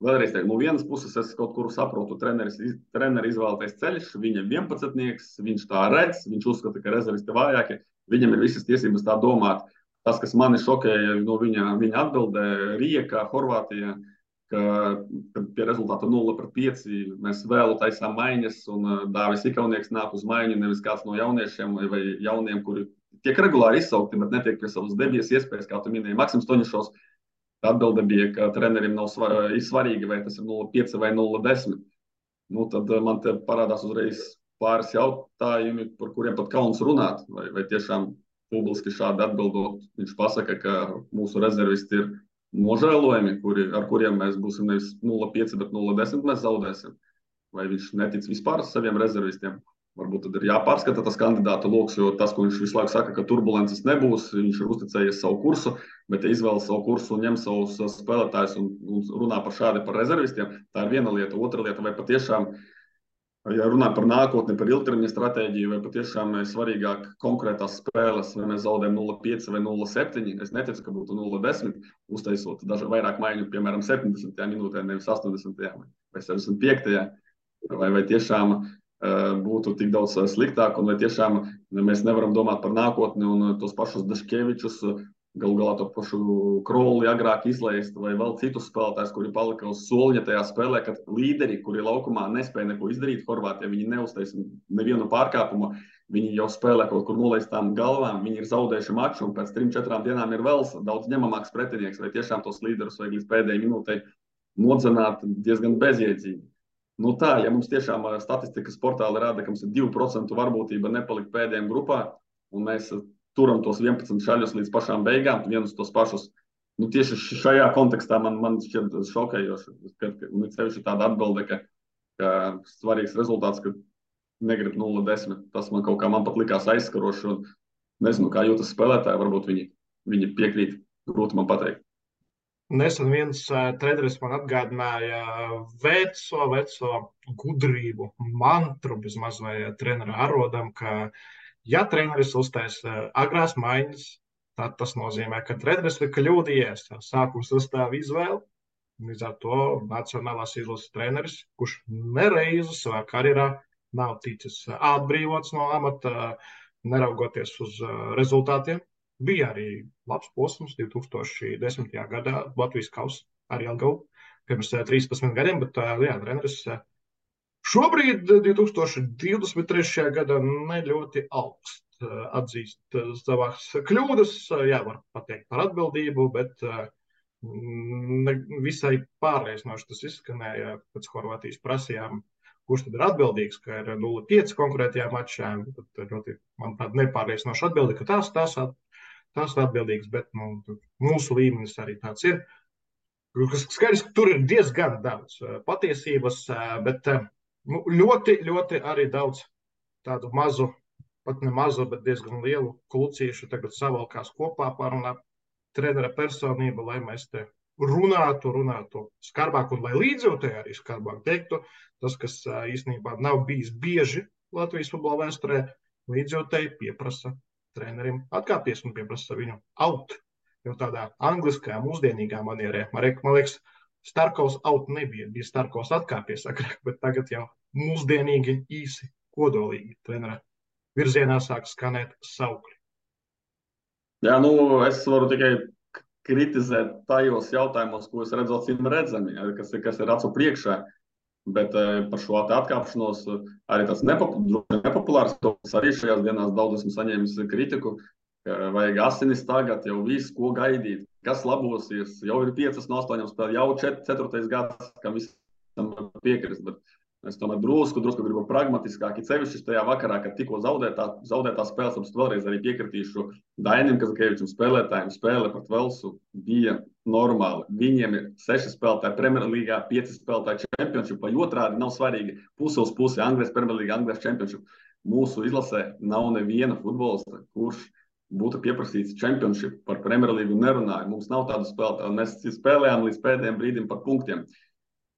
vēlreiz teikt, no vienas puses es kaut kur saprotu, treneri izvēlētais ceļš, viņam 11-nieks, viņš tā redz, viņš uzskata, ka rezervisti vājāki, viņam ir visas tiesības tā domāt. Tas, kas mani šokēja no viņa atbildē, Rijekā, Horvātijā, ka pie rezultāta 0-5 mēs vēlu taisām maiņas, un Dāvis Ikaunieks nāk uz maiņu, nevis kāds no jauniešiem vai jauniem, kuri tiek regulāri izsaukti, bet netiek pie savas debijas iespējas, kā tu minēji. Maksims Toņišovs atbilde bija, ka trenerim nav svarīgi, vai tas ir 0,5 vai 0,10. Nu, tad man te parādās uzreiz pāris jautājumi, par kuriem pat kauns runāt. Vai tiešām publiski šādi atbildot, viņš pasaka, ka mūsu rezervisti ir nožēlojami, ar kuriem mēs būsim nevis 0,5, bet 0,10 mēs zaudēsim. Vai viņš netic vispār saviem rezervistiem? Varbūt tad ir jāpārskata tas kandidātu loks, jo tas, ko viņš visu laiku saka, ka turbulences nebūs, viņš ir uzticējies savu kursu, bet ja izvēlas savu kursu un ņem savus spēlētājus un runā par rezervistiem, tā ir viena lieta. Otra lieta, vai patiešām, ja runā par nākotni, par ilgtermiņa stratēģiju, vai patiešām ir svarīgāk konkrētās spēles, vai mēs zaudējam 0,5 vai 0,7, es neticu, ka būtu 0,10, uztaisot vairāk maiņu, piemēram, 70. minūtē, nevis 80. vai 75. vai tiešām būtu tik daudz sliktāk, un vai tiešām mēs nevaram domāt par nākotni un tos pašus Daškevičus, galu galā to pašu Kroli agrāk izlaist, vai vēl citus spēlētājus, kuri palika uz soliņa tajā spēlē, kad līderi, kuri laukumā nespēja neko izdarīt Horvātijā, viņi neuztais nevienu pārkāpumu, viņi jau spēlē kaut kur nolaistām galvām, viņi ir zaudējuši maču, un pēc 3-4 dienām ir vēl daudz ņemamāks pretinieks, vai tiešām tos līderus vajag līdz pēdējai minūtei nodzenāt diezgan bezjēdzīgi. Nu tā, ja mums tiešām statistikas portāli rāda, ka mums ir 2% varbūtība nepalikt pēdējiem grupā, un mēs turam tos 11 šaļus līdz pašām beigām, vienus tos pašus, nu tieši šajā kontekstā man šķiet šokējoši, ka sevišķi tāda atbilde, ka svarīgs rezultāts, ka negrib 0,10. Tas man kaut kā man pat likās aizskaroši, un nezinu, kā jūtas spēlētāji, varbūt viņi piekrīt, grūti man pateikt. Nesen viens treneris man atgādināja veco gudrību, mantru bezmaz vai trenera arodam, ka ja treneris uztaisa agrās maiņas, tad tas nozīmē, ka treneris ir kļūdījies, sākuma sastāva izvēle. Līdz ar to nacionālās izlases treneris, kurš nereizi savā karjerā nav ticis atbrīvots no amata, neraugoties uz rezultātiem. Bija arī labs posms 2010. gadā Latvijas kausa ar Jelgavu pirms 13 gadiem, bet jā, treneris šobrīd 2023. gadā ne ļoti augst atzīst savās kļūdas. Jā, var pateikt par atbildību, bet visai pārliecinoši tas izskanēja pēc Horvātijas prasījām, kurš tad ir atbildīgs, ka ir 0,5 konkrētajā mačā. Tad ļoti, manuprāt, nepārliecinoši atbildi, ka tās ir atbildīgas, bet mūsu līmenis arī tāds ir. Skaidrs, ka tur ir diezgan daudz patiesības, bet ļoti, ļoti arī daudz tādu mazu, pat ne mazu, bet diezgan lielu klucīšu tagad savalkās kopā pārunā trenera personība, lai mēs te runātu skarbāk, un lai līdzjūtēji arī skarbāk teiktu. Tas, kas īstenībā nav bijis bieži Latvijas futbola vēsturē, līdzjūtēji pieprasa trenerim atkāpties un pieprasa viņu out. Jau tādā angliskajā, mūsdienīgā manierē. Man liekas, Starkovs out nebija. Bija Starkovs atkāpies agrāk, bet tagad jau mūsdienīgi, īsi, kodolīgi trenera virzienā sāk skanēt saukļi. Jā, es varu tikai kritizēt tajos jautājumos, ko es redzu acīm redzami, kas ir acu priekšā. Bet par šo atkāpšanos arī tāds nepopulārs, arī šajās dienās daudz esmu saņēmis kritiku, Vajag asinis tagad, jau viss, ko gaidīt, kas labosies. Jau ir 5 no 8 spēlēm, jau 4. gads, kam visam piekrist. Bet es tomēr drusku gribu pragmatiskāk. Cevišķi tajā vakarā, kad tikko zaudētā spēles, tad vēlreiz arī piekritīšu Dainim Kazakēvičam spēlētājiem. Spēle pret Velsu bija normāli. Viņiem ir 6 spēlētāji Premjerlīgā, 5 spēlētāji Championshipā. Otrādi nav svarīgi puse uz pusi Anglijas Premjerlīga, Anglijas Championship. Mūsu izlasē nav neviena futbolista, kurš būtu pieprasīts Championship par Premjerlīgu nerunāju. Mums nav tādu spēlētāju. Mēs spēlējām līdz pēdējiem brīdim par punktiem.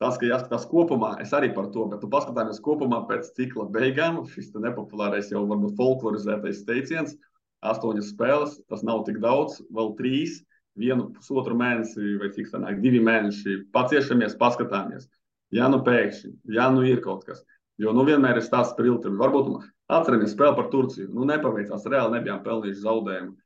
Tas, ka jāskatās kopumā, es arī par to, bet tu paskatāmies kopumā pēc cikla beigām, šis nepopulārais jau varbūt folklorizētais teiciens, 8 spēles, tas nav tik daudz, vēl 3, 1,5 mēnesi vai cik sanāk, 2 mēneši, paciešamies, paskatāmies. Ja nu pēkšņi, ja nu ir kaut kas, jo nu vienmēr ir stāsts par ilgtermiņu. Varbūt atceramies spēli par Turciju, nu nepaveicās, reāli nebijām pelnījuši zaudējumu.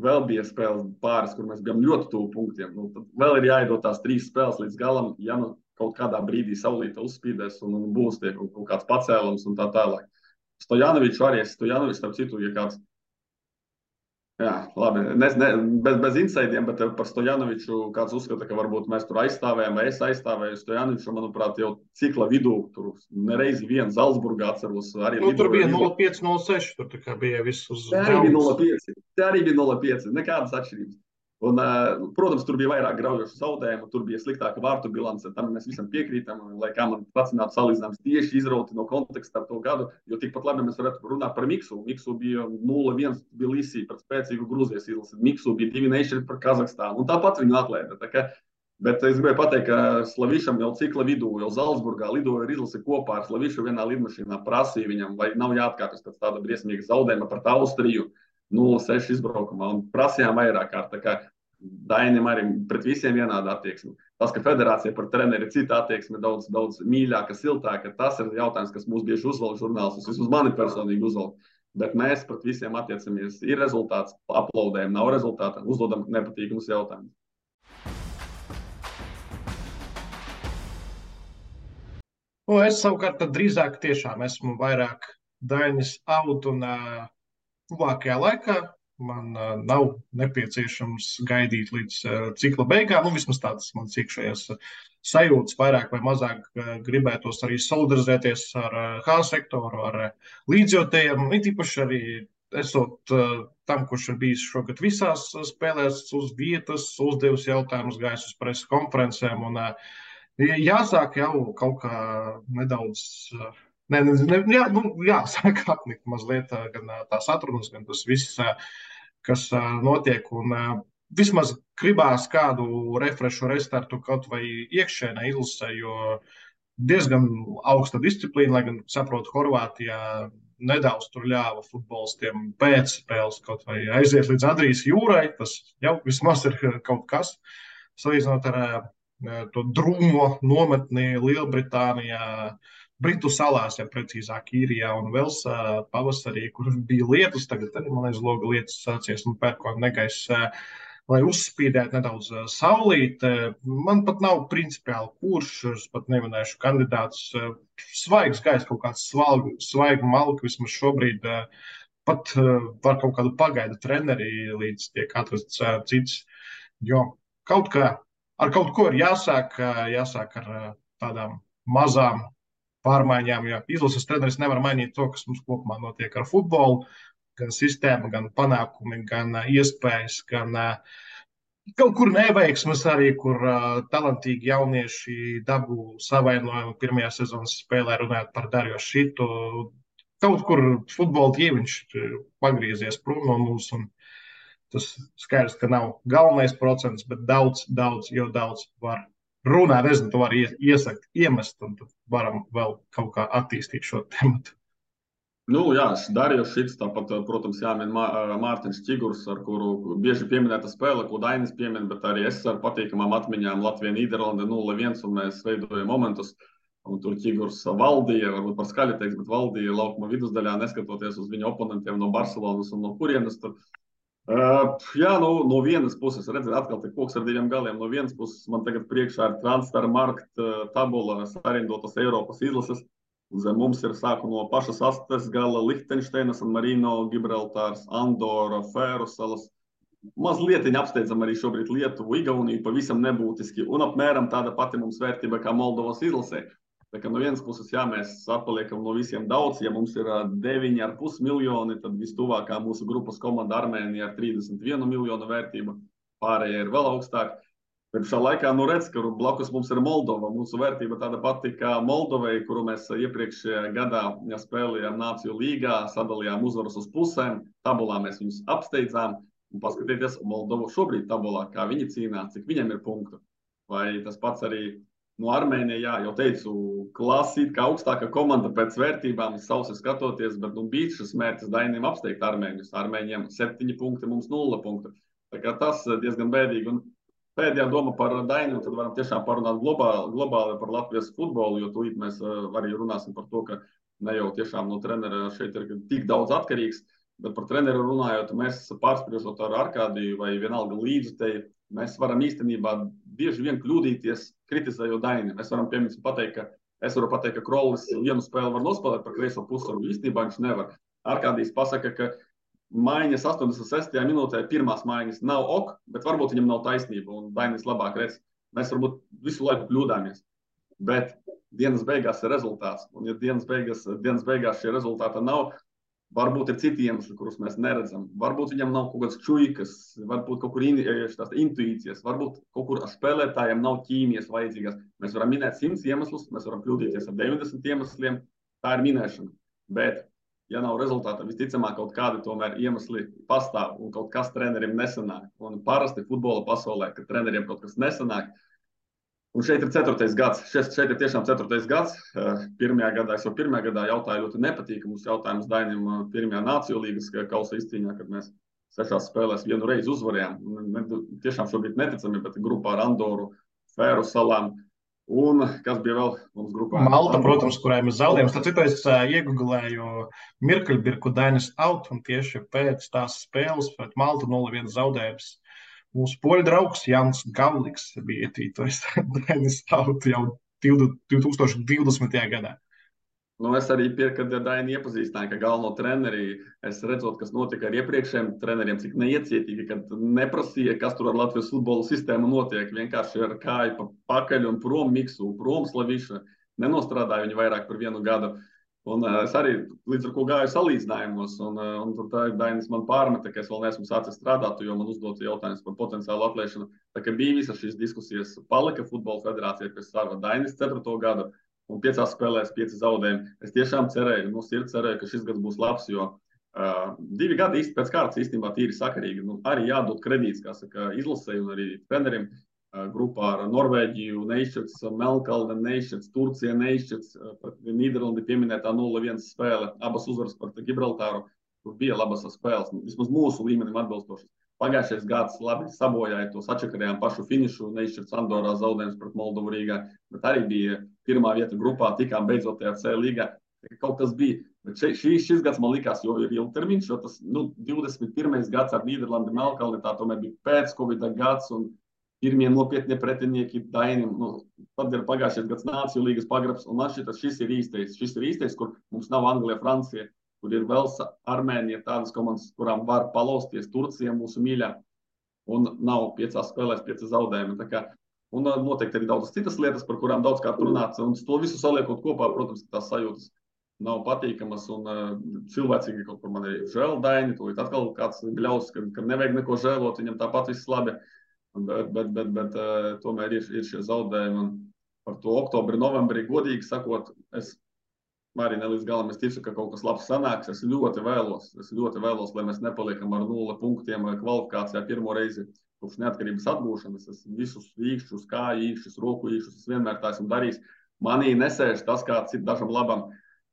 Vēl bija spēles pāris, kur mēs bijām ļoti tuvu punktiem. Nu, tad vēl ir jāiedod tās 3 spēles līdz galam, ja nu kaut kādā brīdī saulīte uzspīdēs un būs tie kaut kāds pacēlums un tā tālāk. Stojanoviču arī, starp citu, ja kāds, jā, labi, bez insaidiem, bet par Stojanoviču kāds uzskata, ka varbūt mēs tur aizstāvējam, vai es aizstāvēju Stojanoviču, manuprāt, jau cikla vidū, tur nereizi vien Zalzburgā atceros. Arī tur bija 0,5, 0,6, tur tā kā bija viss uz Te arī bija 0,5, nekādas atšķirības. Un, protams, tur bija vairāk graujošu zaudējumu, tur bija sliktāka vārtu bilance, tam mēs visam piekrītam, lai kā man pacinātu salīdzinājums tieši izrauti no konteksta ar to gadu, jo tikpat labi mēs varētu runāt par Miksu. Miksu bija 0-1 Tbilisī pret spēcīgu Grūzijas izlasi, Miksu bija 2-0 par Kazahstānu, un tāpat viņu atlaida. Bet es gribēju pateikt, ka Slavišam jau cikla vidū, jau Zalzburgā lidoja ar izlasi kopā ar Slavišu vienā lidmašīnā, prasīja viņam, vai nav jāatkāpjas pēc tāda briesmīga zaudējuma pret Austriju. 0,6 izbraukumā un prasījām vairāk kārt. Tā kā Dainim arī pret visiem vienāda attieksme. Tas, ka federācija par treneri ir cita attieksme, daudz mīļāka, siltāka, tas ir jautājums, kas mūs bieži uzvalk žurnālistus. Vismaz mani personīgi uzvalk. Bet mēs pret visiem attiecamies. Ir rezultāts, aplaudējam, nav rezultāta, uzdodam nepatīkamus jautājumus. Es savukārt drīzāk tiešām esmu vairāk Dainis out un tuvākajā laikā man nav nepieciešams gaidīt līdz cikla beigām. Vismaz tādas manas iekšējās sajūtas vairāk vai mazāk gribētos arī solidarizēties ar H sektoru, ar līdzjūtējiem. It īpaši arī esot tam, kurš ir bijis šogad visās spēlēs uz vietas, uzdevis jautājumus, gājis uz preses konferencēm. Un jāsāk jau kaut kā nedaudz... Jāsāk apnikt mazliet gan tās atrunas, gan tas viss, kas notiek. Un vismaz gribās kādu refrešu restartu kaut vai iekšēnē izlasē, jo diezgan augsta disciplīna, lai gan saprotu, Horvātijā nedaudz tur ļāva futbolistiem pēc spēles kaut vai aiziet līdz Adrijas jūrai. Tas jau vismaz ir kaut kas, salīdzinot ar to drūmo nometni Lielbritānijā, Britu salās, ja precīzāk, Īrijā un Velsā pavasarī, kur bija lietus, tagad arī, man liekas, loga lietus sācies un pērkona negaiss, lai uzspīdētu nedaudz saulīt. Man pat nav principiāli kurš, es pat neminēšu kandidātus, svaigs gaiss, kaut kāds svaigu malku, vismaz šobrīd pat var kaut kādu pagaidu treneri, līdz tiek atrasts cits, jo ar kaut ko ir jāsāk ar tādām mazām pārmaiņām, jo izlases treneris nevar mainīt to, kas mums kopumā notiek ar futbolu, gan sistēma, gan panākumi, gan iespējas, gan kaut kur neveiksmes arī, kur talantīgi jaunieši dabū savainojumu pirmajā sezonas spēlē, runājot par Darjo Šitu. Kaut kur futbola ķīviņš pagriezies prom no mums, un tas skaidrs, ka nav galvenais procents, bet daudz var runāt, nezinu, to var iesakt, iemest, un tad varam vēl kaut kā attīstīt šo tematu. Jā, Darījos Šits, tāpat, protams, jāmin Mārtiņš Čigurs, ar kuru bieži pieminēta spēle, ko Dainis piemin, bet arī es ar patīkamām atmiņām Latvija-Nīderlande 0-1, un mēs veidojam momentus, un tur Čigurs valdīja, varbūt par skaļi teiks, bet valdīja laukuma vidusdaļā, neskatoties uz viņu oponentiem no Barcelonas un no kurienes tur. No vienas puses, redzēt, atkal te koks ar diviem galiem. No vienas puses man tagad priekšā ir Transfermarkt tabula sarindotas Eiropas izlases. Zem mums ir sāku no pašas astes gala Lihtenšteinas, Marino, Gibraltārs, Andora, Fēru salas. Mazliet apsteidzam arī šobrīd Lietuvu, Igauniju, pavisam nebūtiski. Un apmēram tāda pati mums vērtība kā Moldovas izlasē. Tā kā no vienas puses, jā, mēs atpaliekam no visiem daudz. Ja mums ir 9,5 miljoni, tad vistuvākā mūsu grupas komanda Armēnija ar 31 miljonu vērtību. Pārējie ir vēl augstāk. Bet šā laikā redz, ka blakus mums ir Moldova. Mūsu vērtība tāda pati kā Moldovai, kuru mēs iepriekšējā gadā spēlējām Nāciju līgā, sadalījām uzvaras uz pusēm. Tabulā mēs viņus apsteidzām. Un paskatieties Moldovu šobrīd tabulā, kā viņi cīnās, cik viņam ir punktu. Vai tas pats arī no Armēnija, jā, jau teicu, klasīt, kā augstāka komanda pēc vērtībām, sausi skatoties, bet bija šis mērķis Dainiem apsteigt Armēņus. Armēņiem 7 punkti, mums 0 punktu. Tā kā tas diezgan bēdīgi. Un pēdējā doma par Dainiem, tad varam tiešām parunāt globāli par Latvijas futbolu, jo tūlīt mēs arī runāsim par to, ka ne jau tiešām no trenera šeit ir tik daudz atkarīgs. Bet par treneru runājot, mēs pārspriežot ar Arkādiju vai vienalga līdzutēji, mēs varam īstenībā bieži vien kļūdīties, kritizējot Daini. Mēs varam piemēram pateikt, ka Krollis vienu spēli var nospēlēt par kreiso pusvaru, īstenībā viņš nevar. Arkādijs pasaka, ka maiņas 86. minūtē pirmās maiņas nav ok, bet varbūt viņam nav taisnība un Dainis labāk redz. Mēs varbūt visu laiku kļūdāmies. Bet dienas beigās ir rezultāts. Un ja dienas beigās šie rezultāti nav, varbūt ir citi iemesli, kurus mēs neredzam. Varbūt viņam nav kaut kāds čuikas, varbūt kaut kur tās intuīcijas, varbūt kaut kur spēlētājiem nav ķīmijas vajadzīgas. Mēs varam minēt 100 iemeslus, mēs varam kļūdīties ar 90 iemesliem. Tā ir minēšana. Bet, ja nav rezultāta, visticamāk kaut kādi tomēr iemesli pastāv un kaut kas treneriem nesanāk. Un parasti futbola pasaulē, kad treneriem kaut kas nesanāk, un šeit ir 4. gads. Šeit ir tiešām 4. gads. Pirmajā gadā jautāju ļoti nepatīkamus jautājumus Dainim pirmajā Nāciju līgas kausa izcīņā, kad mēs 6 spēlēs vienu reizi uzvarējām. Tiešām šobrīd neticami, bet grupā ar Andoru, Fēru salām. Un kas bija vēl mums grupā? Malta, protams, kurai mēs zaudējām. Tad citu es iegooglēju Mirkeļbirku Dainis out, un tieši pēc tās spēles pret Maltu 0-1 zaudējums. Mūsu poļu draugs Jans Gavliks bija ietītojis Dainis out jau 2020. gadā. Nu, es arī kad Daini iepazīstināju, ka galveno treneri, es redzot, kas notika ar iepriekšējiem treneriem, cik neiecietīgi, kad neprasīja, kas tur ar Latvijas futbola sistēmu notiek, vienkārši ar kāju pa pakaļ un prom Miksu, prom Slaviša, nenostrādāja viņi vairāk par 1 gadu. Un es arī līdz ar ko gāju salīdzinājumos, un tad Dainis man pārmeta, ka es vēl neesmu sācis strādāt, jo man uzdota jautājums par potenciālu atlaišanu. Tā kā bija visas šīs diskusijas, palika futbola federācija pie sava Dainis 4. gadu, un 5 spēlēs 5 zaudējumi. Es tiešām cerēju, no sirds cerēju, ka šis gads būs labs, jo 2 gadi pēc kārtas īstenībā tīri sakarīgi. Nu, arī jādod kredīts, kā saka, izlasēji un arī trenerim. Grupā ar Norvēģiju neizšķirts, Melnkalne neizšķirts, Turcija neizšķirts, Nīderlandi pieminētā 0-1 spēle, abas uzvaras par Gibraltāru, tur bija labas spēles, vismaz mūsu līmenim atbilstošas. Pagājušais gads labi sabojāja to, sačakarējām pašu finišu, neizšķirts Andorā zaudējums pret Moldovu Rīgā, bet arī bija pirmā vieta grupā, tikām beidzot tajā C līgā, kaut kas bija. Bet šis gads man likās, jo ir ilgtermiņš, jo tas 21. gads ar Nīderlandi, Melnkalni, tā tomēr bija pēc Covid gads un pirmie nopietnie pretinieki Dainim. Tad ir pagājušais gads Nāciju līgas pagrabs, un man šis ir īstais. Šis ir īstais, kur mums nav Anglija, Francija, kur ir Velsa, Armēnija, tādas komandas, kurām var palausties, Turcija mūsu mīļā, un nav 5 spēlēs 5 zaudējumi. Un noteikti arī daudzas citas lietas, par kurām daudzkārt runāts, un to visu saliekot kopā, protams, tās sajūtas nav patīkamas, un cilvēcīgi kaut kur man ir žēl Daini, to atkal kāds bļaus, ka nevajag neko žēlot, viņam tāpat viss labi. Bet tomēr ir šie zaudējumi. Un par to oktobri, novembrī, godīgi sakot, es arī ne līdz galam ticu, ka kaut kas labs sanāks. Es ļoti vēlos, lai mēs nepaliekam ar 0 punktiem kvalifikācijā pirmo reizi kopš neatkarības atgūšanas. Es visus īkšķus, kāju īkšķus, roku īkšķus, es vienmēr tā esmu darījis. Manī nesēž tas, kāds ir dažam labam.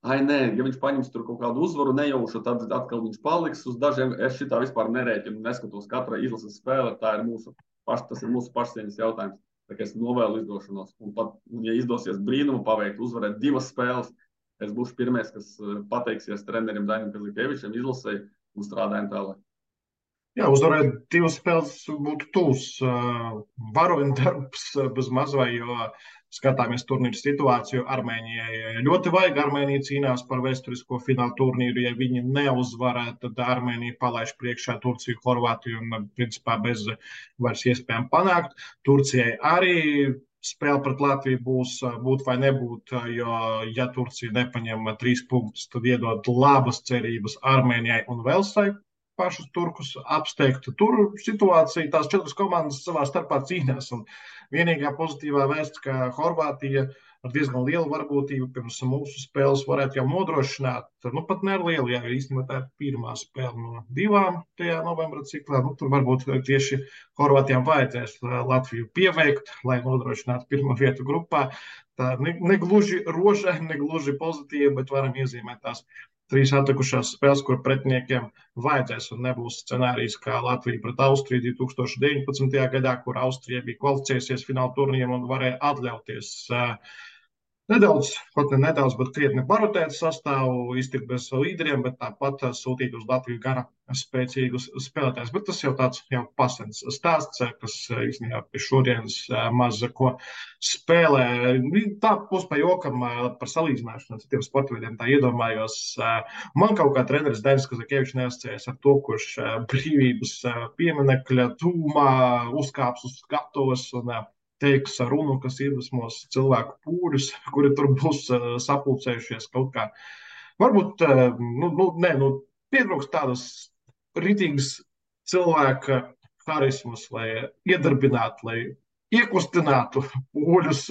Ai, nē, ja viņš paņems tur kaut kādu uzvaru nejaušu, tad atkal viņš paliks uz dažiem. Es šitā vispār nerēķinu, neskatos katra izlases spēle, tas ir mūsu pašcieņas jautājums. Tā kā es novēlu izdošanos. Un pat, ja izdosies brīnumu paveikt, uzvarēt 2 spēles, es būšu pirmais, kas pateiksies trenerim Dainim Kazikevičam, izlasēji un strādājam tālāk. Jā, uzvarēt divas spēles būtu tūs varoņu darbs bez mazvai, jo skatāmies turnīru situāciju. Armēnijai ļoti vajag. Armēnija cīnās par vēsturisko finālu turnīru. Ja viņi neuzvarē, tad Armēnija palaiž priekšā Turciju, Horvātiju un principā bez vairs iespējām panākt. Turcijai arī spēle pret Latviju būs būt vai nebūt, jo ja Turcija nepaņem 3 punktus, tad iedod labas cerības Armēnijai un Velsai pašus turkus apsteigt. Tur situācija, tās 4 komandas savā starpā cīnās. Un vienīgā pozitīvā vēsts, ka Horvātija ar diezgan lielu varbūtību pirms mūsu spēles varētu jau nodrošināt. Nu, pat ne ar lielu, jā, jo īstenībā tā ir pirmā spēle no 2 tajā novembra ciklā. Nu, tur varbūt tieši Horvātijām vajadzēs Latviju pieveikt, lai nodrošinātu pirmo vietu grupā. Tā negluži rožaini, negluži pozitīva, bet varam iezīmēt tās 3 atlikušās spēles, kur pretiniekiem vajadzēs un nebūs scenārijs kā Latvija pret Austriju 2019. gadā, kur Austrija bija kvalificējusies fināla turnīram un varēja atļauties nedaudz, pat ne nedaudz, bet krietni barotēt sastāvu, iztikt bez līderiem, bet tāpat sūtīt uz Latviju gana spēcīgus spēlētājus. Bet tas jau tāds jau pasens stāsts, kas īstenībā pie šodienas maz ko spēlē. Tā būs pa jokam par salīdzināšanu ar citiem sportveidiem. Tā iedomājos, man kaut kā treneris Dainis Kazakievičs neasociējas ar to, kurš brīvības pieminekļa tūmā uzkāps uz skatuves un teiks runu, kas iedvesmos cilvēku pūļus, kuri tur būs sapulcējušies kaut kā. Varbūt, pietrūks tādas ritīgas cilvēka harismas, lai iedarbinātu, lai iekustinātu pūļus,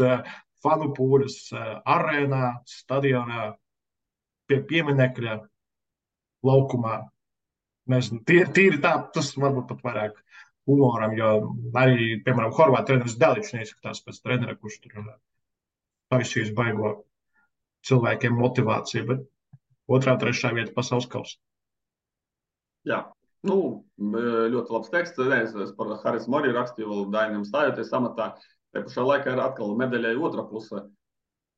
fanu pūļus arēnā, stadionā, pie pieminekļa, laukumā. Nezinu, tīri tā, tas varbūt pat vairāk humoram, jo arī, piemēram, Horvātu treneris Daličs neizskatās pēc trenera, kurš tur taisīs baigo cilvēkiem motivāciju, bet 2., 3. vieta pasaules kausā. Jā, ļoti labs teksts. Es par harismu arī rakstīju, vēl Dainam stājoties amatā. Te pašā laikā ir atkal medaļai otra puse.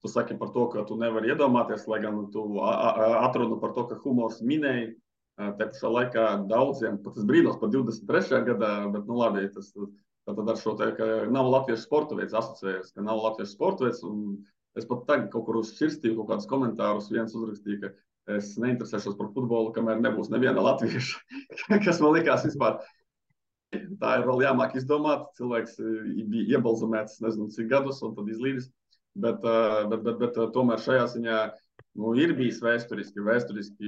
Tu saki par to, ka tu nevari iedomāties, lai gan tu atrunu par to, ka humors minēja. Te pašā laikā daudziem, pat es brīnos par 23. gadā, bet labi, tas tad ar šo te, ka nav latviešu sporta veids asociējies, ka nav latviešu sporta veids, un es pat tagad kaut kur uzšķirstīju kaut kādus komentārus, viens uzrakstīja, ka es neinteresēšos par futbolu, kamēr nebūs neviena latvieša, kas man likās vispār. Tā ir vēl jāmāk izdomāt, cilvēks bija iebalzamēts nezinu cik gadus un tad izlīdis, bet tomēr šajā ziņā ir bijis vēsturiski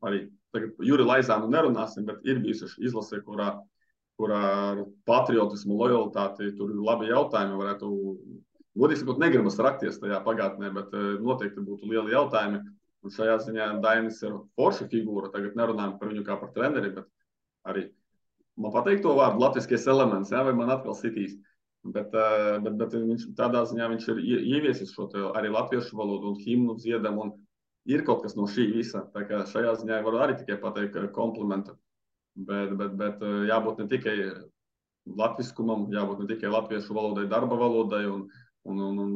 arī. Tagad Juri Laizānu nerunāsim, bet ir bijusi izlase, kurā ar patriotismu, lojalitāti, tur ir labi jautājumi, varētu, godīgi sakot, negribas rakties tajā pagātnē, bet noteikti būtu lieli jautājumi. Un šajā ziņā Dainis ir forša figūra, tagad nerunājam par viņu kā par treneri, bet arī, man pateikt to vārdu, latviskais elements, jā, vai man atkal sitīs. Bet viņš, tādā ziņā viņš ir ieviesis šo arī latviešu valodu un himnu dziedam un ir kaut kas no šī visa, tā kā šajā ziņā varu arī tikai pateikt komplimentu, bet jābūt ne tikai latviskumam, jābūt ne tikai latviešu valodai, darba valodai un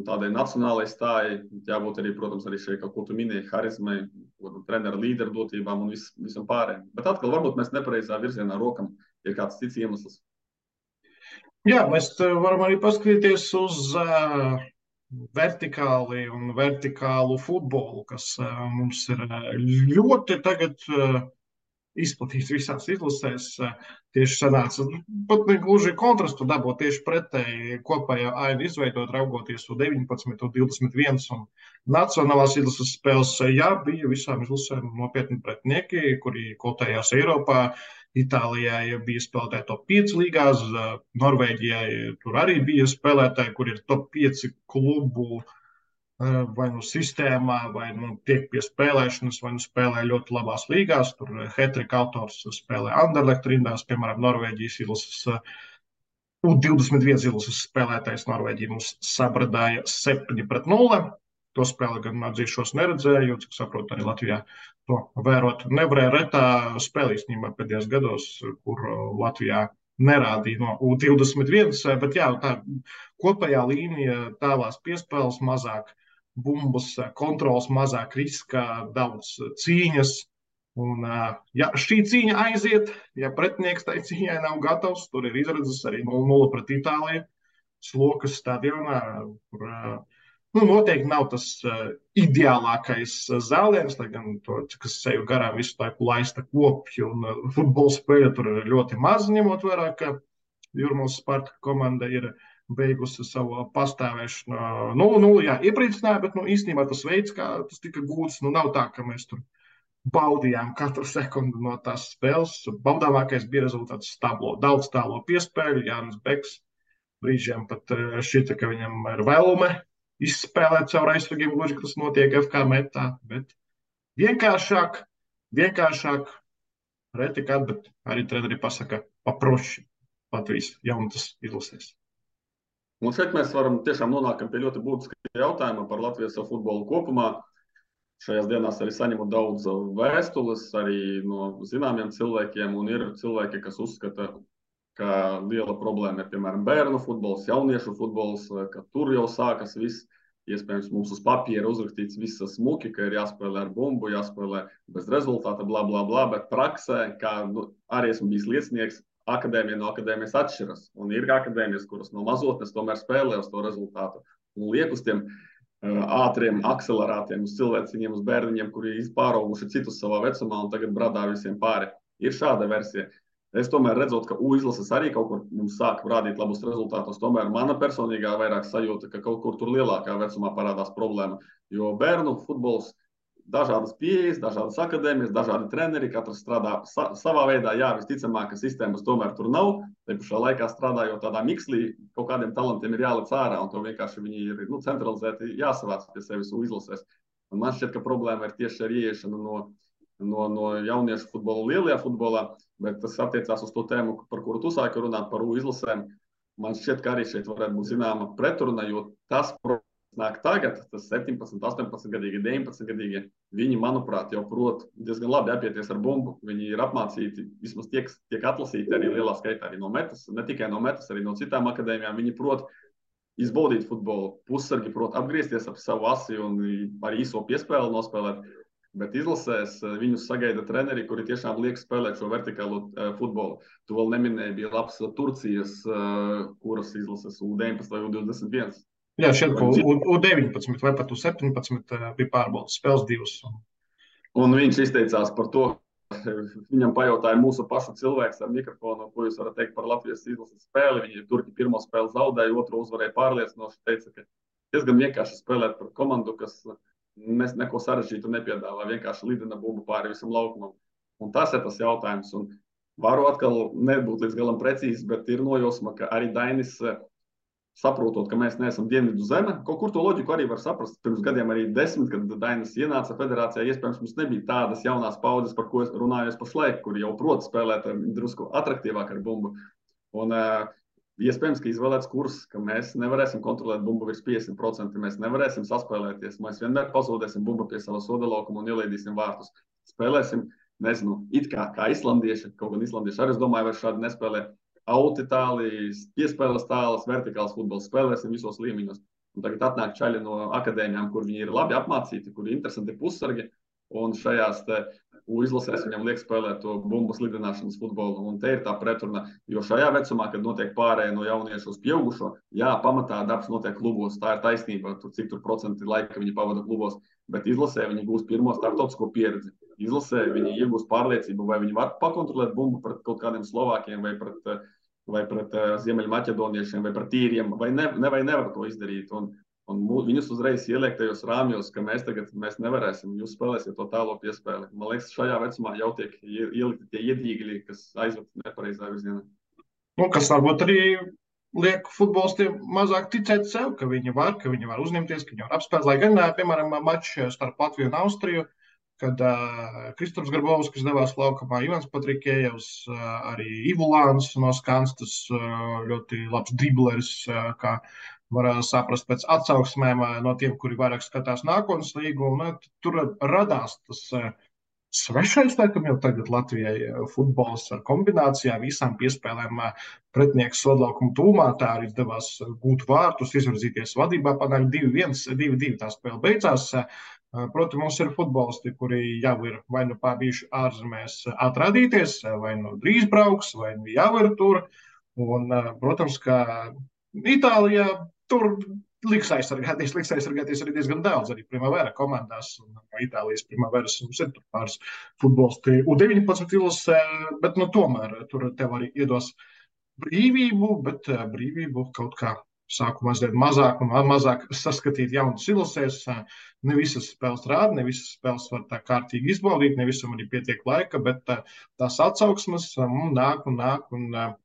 tādai nacionālai stājai, jābūt arī, protams, arī šeit kaut ko tu minēji, harizmai, trenera līderu dotībām un visam pārējiem. Bet atkal varbūt mēs nepareizā virzienā rokam, ir kāds cits iemesls. Jā, mēs varam arī paskatīties uz vertikālu futbolu, kas mums ir ļoti tagad izplatīts visās izlasēs. Tieši sanāca pat ne gluži kontrastu dabūt tieši pretēji kopējā ainu izveidot, raugoties uz 19, 21 un nacionālās izlases spēles. Jā, bija visām izlasēm nopietni pretinieki, kuri kotējās Eiropā. Itālijai bija spēlētāji top 5 līgās, Norvēģijai tur arī bija spēlētāji, kur ir top 5 klubu vai nu sistēmā, vai nu tiek pie spēlēšanas, vai nu spēlē ļoti labās līgās. Tur hat-trika autors spēlē Anderlecht rindās, piemēram, Norvēģijas izlases U21 izlases spēlētājs Norvēģija mums sabradāja 7-0. To spēli gan atzīšos neredzēju, cik saprotu, arī Latvijā to vērot nevarēja. Retā spēle īstenībā pēdējos gados, kur Latvijā nerādīja no U21, bet jā, tā kopējā līnija, tālās piespēles, mazāk bumbas, kontrols, mazāk riska, daudz cīņas Un, ja šī cīņa aiziet, ja pretinieks tai cīņai nav gatavs, tur ir izredzes arī 0-0 pret Itāliju, Slokas stadionā, kur noteikti nav tas ideālākais zāliens, lai gan to, kas seju garām visu laiku laista kopju un futbola spēle tur ir ļoti maz, ņemot vērā, ka Jūrmālas Sparta komanda ir beigusi savu pastāvēšanu 0-0. Jā, iepriecināja, bet īstenībā tas veids, kā tas tika gūts, nav tā, ka mēs tur baudījām katru sekundi no tās spēles. Baudāmākais bija rezultāts stablo. Daudz tālo piespēļu, Jānis Beks brīžiem pat šķita, ka viņam ir vēlume izspēlēt caur aizsargiem, gluži, ka tas notiek FK metā, bet vienkāršāk, reti kad, bet arī treneri pasaka paproši Latvijas jaunatas izlasēs. Un šeit mēs varam tiešām nonākam pie ļoti būtiska jautājuma par Latvijas futbolu kopumā. Šajās dienās arī saņemu daudz vēstules arī no zināmiem cilvēkiem, un ir cilvēki, kas uzskata, ka liela problēma ir, piemēram, bērnu futbols, jauniešu futbols, ka tur jau sākas viss. Iespējams, mums uz papīra uzrakstīts viss smuki, ka ir jāspēlē ar bumbu, jāspēlē bez rezultāta, bla, bla, bla, bet praksē, kā arī esmu bijis liecinieks, akadēmija no akadēmijas atšķiras. Un ir akadēmijas, kuras no mazotnes tomēr spēlē uz to rezultātu. Un liek uz tiem ātriem akcelerātiem, uz cilvēciņiem, uz bērniņiem, kuri izpārauguši citus savā vecumā un tagad bradā visiem pāri. Ir šāda versija. Es tomēr redzot, ka U-izlases arī kaut kur mums sāk rādīt labus rezultātus. Tomēr mana personīgā vairāk sajūta, ka kaut kur tur lielākā vecumā parādās problēma. Jo bērnu futbols, dažādas pieejas, dažādas akadēmijas, dažādi treneri, katrs strādā savā veidā. Jā, visticamāk, ka sistēmas tomēr tur nav. Te pašā laikā strādājot tādā mikslī, kaut kādiem talantiem ir jālec ārā, un to vienkārši viņi ir centralizēti jāsavāc pie sevis U-izlasēs. Un man šķiet, ka problēma ir tieši ar ieiešanu no jauniešu futbola lielajā futbolā, bet tas attiecās uz to tēmu, par kuru tu sāki runāt, par U-izlasēm. Man šķiet, ka arī šeit varētu būt zināma pretruna, jo tas nāk tagad, tas 17, 18-gadīgi, 19-gadīgi, viņi, manuprāt, jau prot diezgan labi apieties ar bumbu. Viņi ir apmācīti, vismaz tiek atlasīti arī lielā skaitā arī no metas, ne tikai no metas, arī no citām akadēmijām. Viņi prot izbaudīt futbolu, pussargi prot apgriezties ap savu asi un arī īso piespēli nospēlēt. Bet izlasēs viņus sagaida treneri, kuri tiešām liek spēlēt šo vertikālo futbolu. Tu vēl neminēji, bija labs Turcijas, kuras izlases U19 vai U21. Jā, šeit U19 vai pat U17 bija pārbaudas spēles divas. Un viņš izteicās par to, viņam pajautāja mūsu pašu cilvēks ar mikrofonu, ko jūs varat teikt par Latvijas izlases spēli. Viņi Turki pirmo spēli zaudēja, otru uzvarēja pārliecinoši. Teica, ka diezgan vienkārši spēlēt par komandu, kas neko sarežģītu nepiedāvā, vienkārši lidina bumbu pāri visam laukumam. Un tas ir tas jautājums. Un varu atkal nebūt līdz galam precīzi, bet ir nojosma, ka arī Dainis, saprotot, ka mēs neesam dienvidu zeme, kaut kur to loģiku arī var saprast. Pirms gadiem arī 10, kad Dainis ienāca federācijā, iespējams, mums nebija tādas jaunās paudzes, par ko es runājos pašlaik, kuri jau prot spēlēt drusku atraktīvāk ar bumbu. Un iespējams, ka izvēlēts kurs, ka mēs nevarēsim kontrolēt bumbu virs 50%, mēs nevarēsim saspēlēties, mēs vienmēr pazaudēsim bumbu pie sava soda laukuma un ielaidīsim vārtus. Spēlēsim, nezinu, it kā islandieši, kaut gan islandieši arī, es domāju, vairs šādi nespēlē auti-tālijas, piespēles tālas, vertikāls futbols, spēlēsim visos līmeņos. Un tagad atnāk čaļi no akadēmijām, kur viņi ir labi apmācīti, kur ir interesanti pussargi, un šajās izlasēs viņam liek spēlēt to bumbas lidināšanas futbolu. Un te ir tā pretruna, jo šajā vecumā, kad notiek pārēja no jauniešu uz pieaugušo, jā, pamatā darbs notiek klubos, tā ir taisnība, cik tur procenti laika viņi pavada klubos, bet izlasē viņi gūs pirmo starptautisko pieredzi. Izlasē viņi iegūs pārliecību, vai viņi var pakontrolēt bumbu pret kaut kādiem Slovākiem vai pret Ziemeļmaķedoniešiem vai pret īriem, vai nevar to izdarīt. Un viņus uzreiz ieliek tajos rāmjos, ka mēs nevarēsim, jūs spēlēsiet to tālo piespēli. Man liekas, šajā vecumā jau tiek ielikti tie iedīgļi, kas aizved nepareizā virzienā. Kas varbūt arī liek futbolistiem mazāk ticēt sev, ka viņi var uzņemties, ka viņi var apspēlēt. Lai gan, piemēram, mačs starp Latviju un Austriju, kad Kristaps Grabovskis devās laukumā, Ivans Patrikējevs, arī Ivulāns no Skanstas, ļoti labs dribleris, kā var saprast pēc atsauksmēm no tiem, kuri vairāk skatās nākotnes līgu. Un tur radās tas svešais, laikam jau tagad Latvijai futbols ar kombinācijām, visām piespēlēm pretinieks sodlaukuma tūmā. Tā arī izdevās gūt vārtus, izvirzīties vadībā, panākt 2-1, 2-2 tā spēle beidzās. Protams, mums ir futbolisti, kuri jau ir vai nu bijuši ārzemēs atrādīties, vai nu drīz brauks, vai nu jau ir tur. Un, protams, ka Itālijā tur liks aizsargāties arī diezgan daudz. Arī Primavera komandās, un no Itālijas Primaveras mums ir tur pāris futbolisti U19 izlasē, bet nu, tomēr tur tev arī iedos brīvību, bet brīvību kaut kā sāku mazliet mazāk un mazāk saskatīt jaunus izlasēs. Ne visas spēles rāda, ne visas spēles var tā kārtīgi izbaudīt, ne visam arī pietiek laika, bet tās atsauksmes nāk un nāk.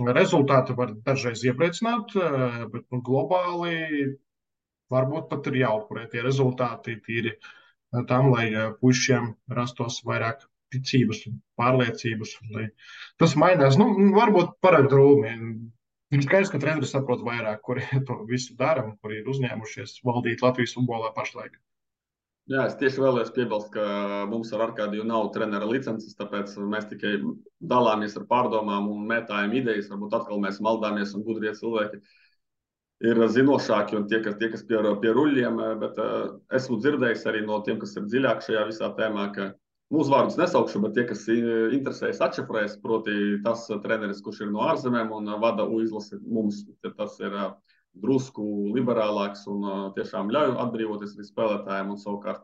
Rezultāti var dažreiz iepriecināt, bet nu, globāli varbūt pat ir jāupurē tie rezultāti tīri tam, lai puišiem rastos vairāk ticības un pārliecības. Lai tas mainās. Nu, varbūt parāda drūmi. Ir skaidrs, ka treneris saprot vairāk, kuri to visu dara un kuri ir uzņēmušies valdīt Latvijas futbolā pašlaik. Jā, es tieši vēlējos piebilst, ka mums ar Arkādiju nav trenera licences, tāpēc mēs tikai dalāmies ar pārdomām un mētājam idejas. Varbūt atkal mēs maldāmies un gudrie cilvēki ir zinošāki un tie, kas pie ruļļiem, bet esmu dzirdējis arī no tiem, kas ir dziļāk šajā visā tēmā, ka mūsu vārdus nesaukšu, bet tie, kas interesējas atšifrēs, proti tas treneris, kurš ir no ārzemēm un vada izlasi mums, tas ir drusku liberālāks un tiešām ļauj atbrīvoties arī spēlētājiem, un savukārt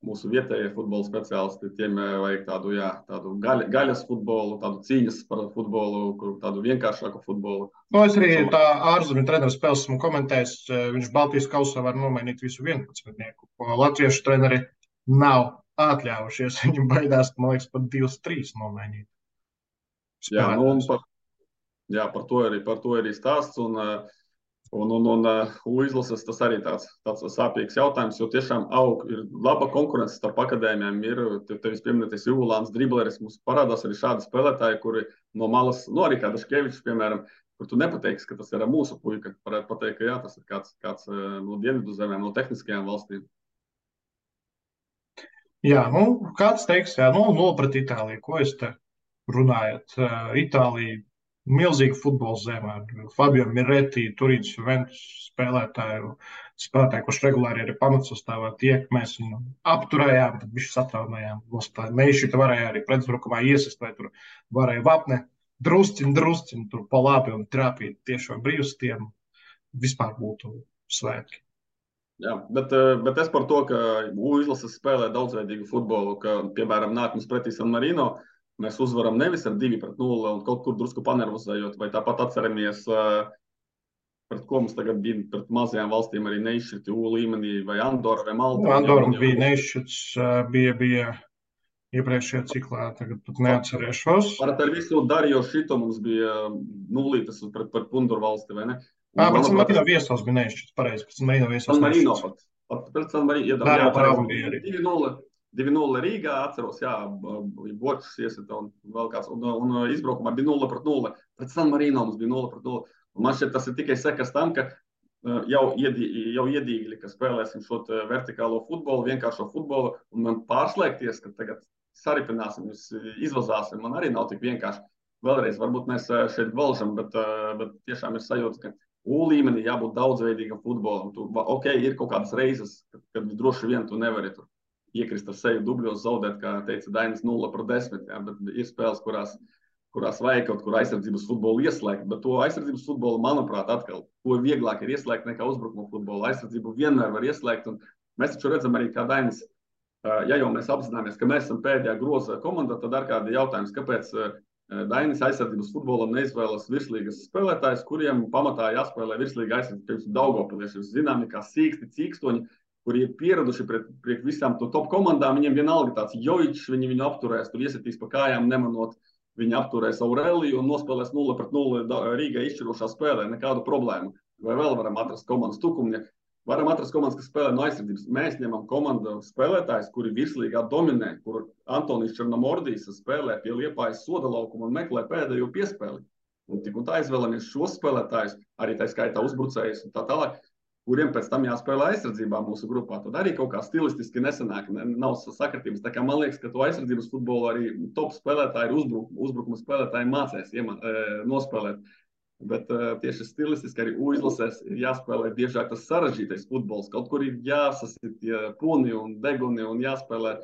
mūsu vietējie futbola speciālisti, tiem vajag tādu gaļas futbolu, tādu cīņas par futbolu, tādu vienkāršāku futbolu. No, es arī tā ārzemju treneru spēles esmu komentējis, viņš Baltijas kausā var nomainīt visu 11-nieku, ko latviešu treneri nav atļāvušies. Viņam baidās, man liekas, pat 2-3 nomainīt. Jā, nu, par to arī stāsts. Un izlases tas arī tāds sāpīgs jautājums, jo tiešām ir laba konkurence starp akadēmijām. Ir tevis pieminētais Ivulāns, dribleris, mums parādās arī šādi spēlētāji, kuri no malas, arī kā Daškevičs, piemēram, kur tu nepateiksi, ka tas ir mūsu puika. Varētu pateikt, ka jā, tas ir kāds no dienvidu zemēm, no tehniskajām valstīm. Jā, nu, kāds teiks, jā, nu, pret Itāliju, ko es te runājat? Itālija milzīga futbola zeme. Fabio Miretti, Turīnas Juventus spēlētāju, kurš regulāri arī pamatsastāvā tiek. Mēs viņu apturējām, tad viņš satraumējām. Neišķita varēja arī pretuzbrukumā iesist, vai tur varēja vapne drusciņ, tur pa labi un trāpīt tiešo brīvstiem. Vispār būtu svētki. Jā, bet es par to, ka izlases spēlē daudzveidīgu futbolu, ka, piemēram, nāk mums pretī San Marino, mēs uzvaram nevis ar 2-0 un kaut kur drusku panervozējot, vai tāpat atceramies, pret ko mums tagad bija pret mazajām valstīm arī neizšķirti U līmenī, vai Andora vai Malta. Andora bija neizšķirts, bija iepriekšējā ciklā, tagad pat neatcerēšos. Ar visu Darjo šito mums bija nulītas pret Punduru valsti, vai ne? Pēc San Marino viesos bija neizšķirts, pareizi, pēc San Marino viesos San Marino pat. Pret San Marino, jā, bija arī. 2-0 Rīgā, atceros, jā, Bočs iesita un vēl kāds, un izbraukumā bija 0-0. Pret San Marino mums bija 0-0. Un man šķiet, tas ir tikai sekas tam, ka jau iedīgļi, ka spēlēsim šo vertikālo futbolu, vienkāršo futbolu, un man pārslēgties, ka tagad saripināsim, izvazāsim, man arī nav tik vienkārši. Vēlreiz, varbūt mēs šeit valžam, bet tiešām ir sajūta, ka U līmenī jābūt daudzveidīgam futbolam. Ir kaut kādas reizes, kad droši vien tu nevari tur iekrist ar seju dubļos, zaudēt, kā teica Dainis, 0-10. Jā, bet ir spēles, kurās vajag kaut kur aizsardzības futbolu ieslēgt. Bet to aizsardzības futbolu, manuprāt, atkal, to vieglāk ir ieslēgt nekā uzbrukuma futbolu. Aizsardzību vienmēr var ieslēgt. Un mēs taču redzam arī, kā Dainis, ja jau mēs apzināmies, ka mēs esam pēdējā groza komanda, tad ar kādi jautājums, kāpēc Dainis aizsardzības futbolam neizvēlas virslīgas spēlētājus, kuriem pamatā jāspēlē virslīga aizsardzības Daugavpilieši. Zināmi, kā sīksti, cīkstoņi, kuri ir pieraduši pret visām to top komandām, viņiem vienalga tāds Jojičs, viņi viņu apturēs, tur iesitīs pa kājām, nemanot, viņi apturēs Aureliju un nospēlēs 0-0 Rīgai izšķirošā spēlē, nekādu problēmu. Vai vēl varam atrast komandas tukumņa? Varam atrast komandas, kas spēlē no aizsardzības. Mēs ņemam komandu spēlētājus, kuri virslīgā dominē, kur Antonijs Černomordijs spēlē pie Liepājas soda laukuma un meklē pēdējo piespēli. Un tik un tā izvēlamies šos spēlētājus, arī tā skaitā uzbrucējus un tā tālāk, kuriem pēc tam jāspēlē aizsardzībā mūsu grupā. Tad arī kaut kā stilistiski nesanāk, nav sakritības. Tā kā man liekas, ka to aizsardzības futbolu arī top spēlētāji, uzbrukuma spēlētāji mācēs nospēlēt. Bet tieši stilistiski arī U-izlasēs ir jāspēlē biežāk tas sarežģītais futbols. Kaut kur ir jāsasit tie puni un deguni un jāspēlē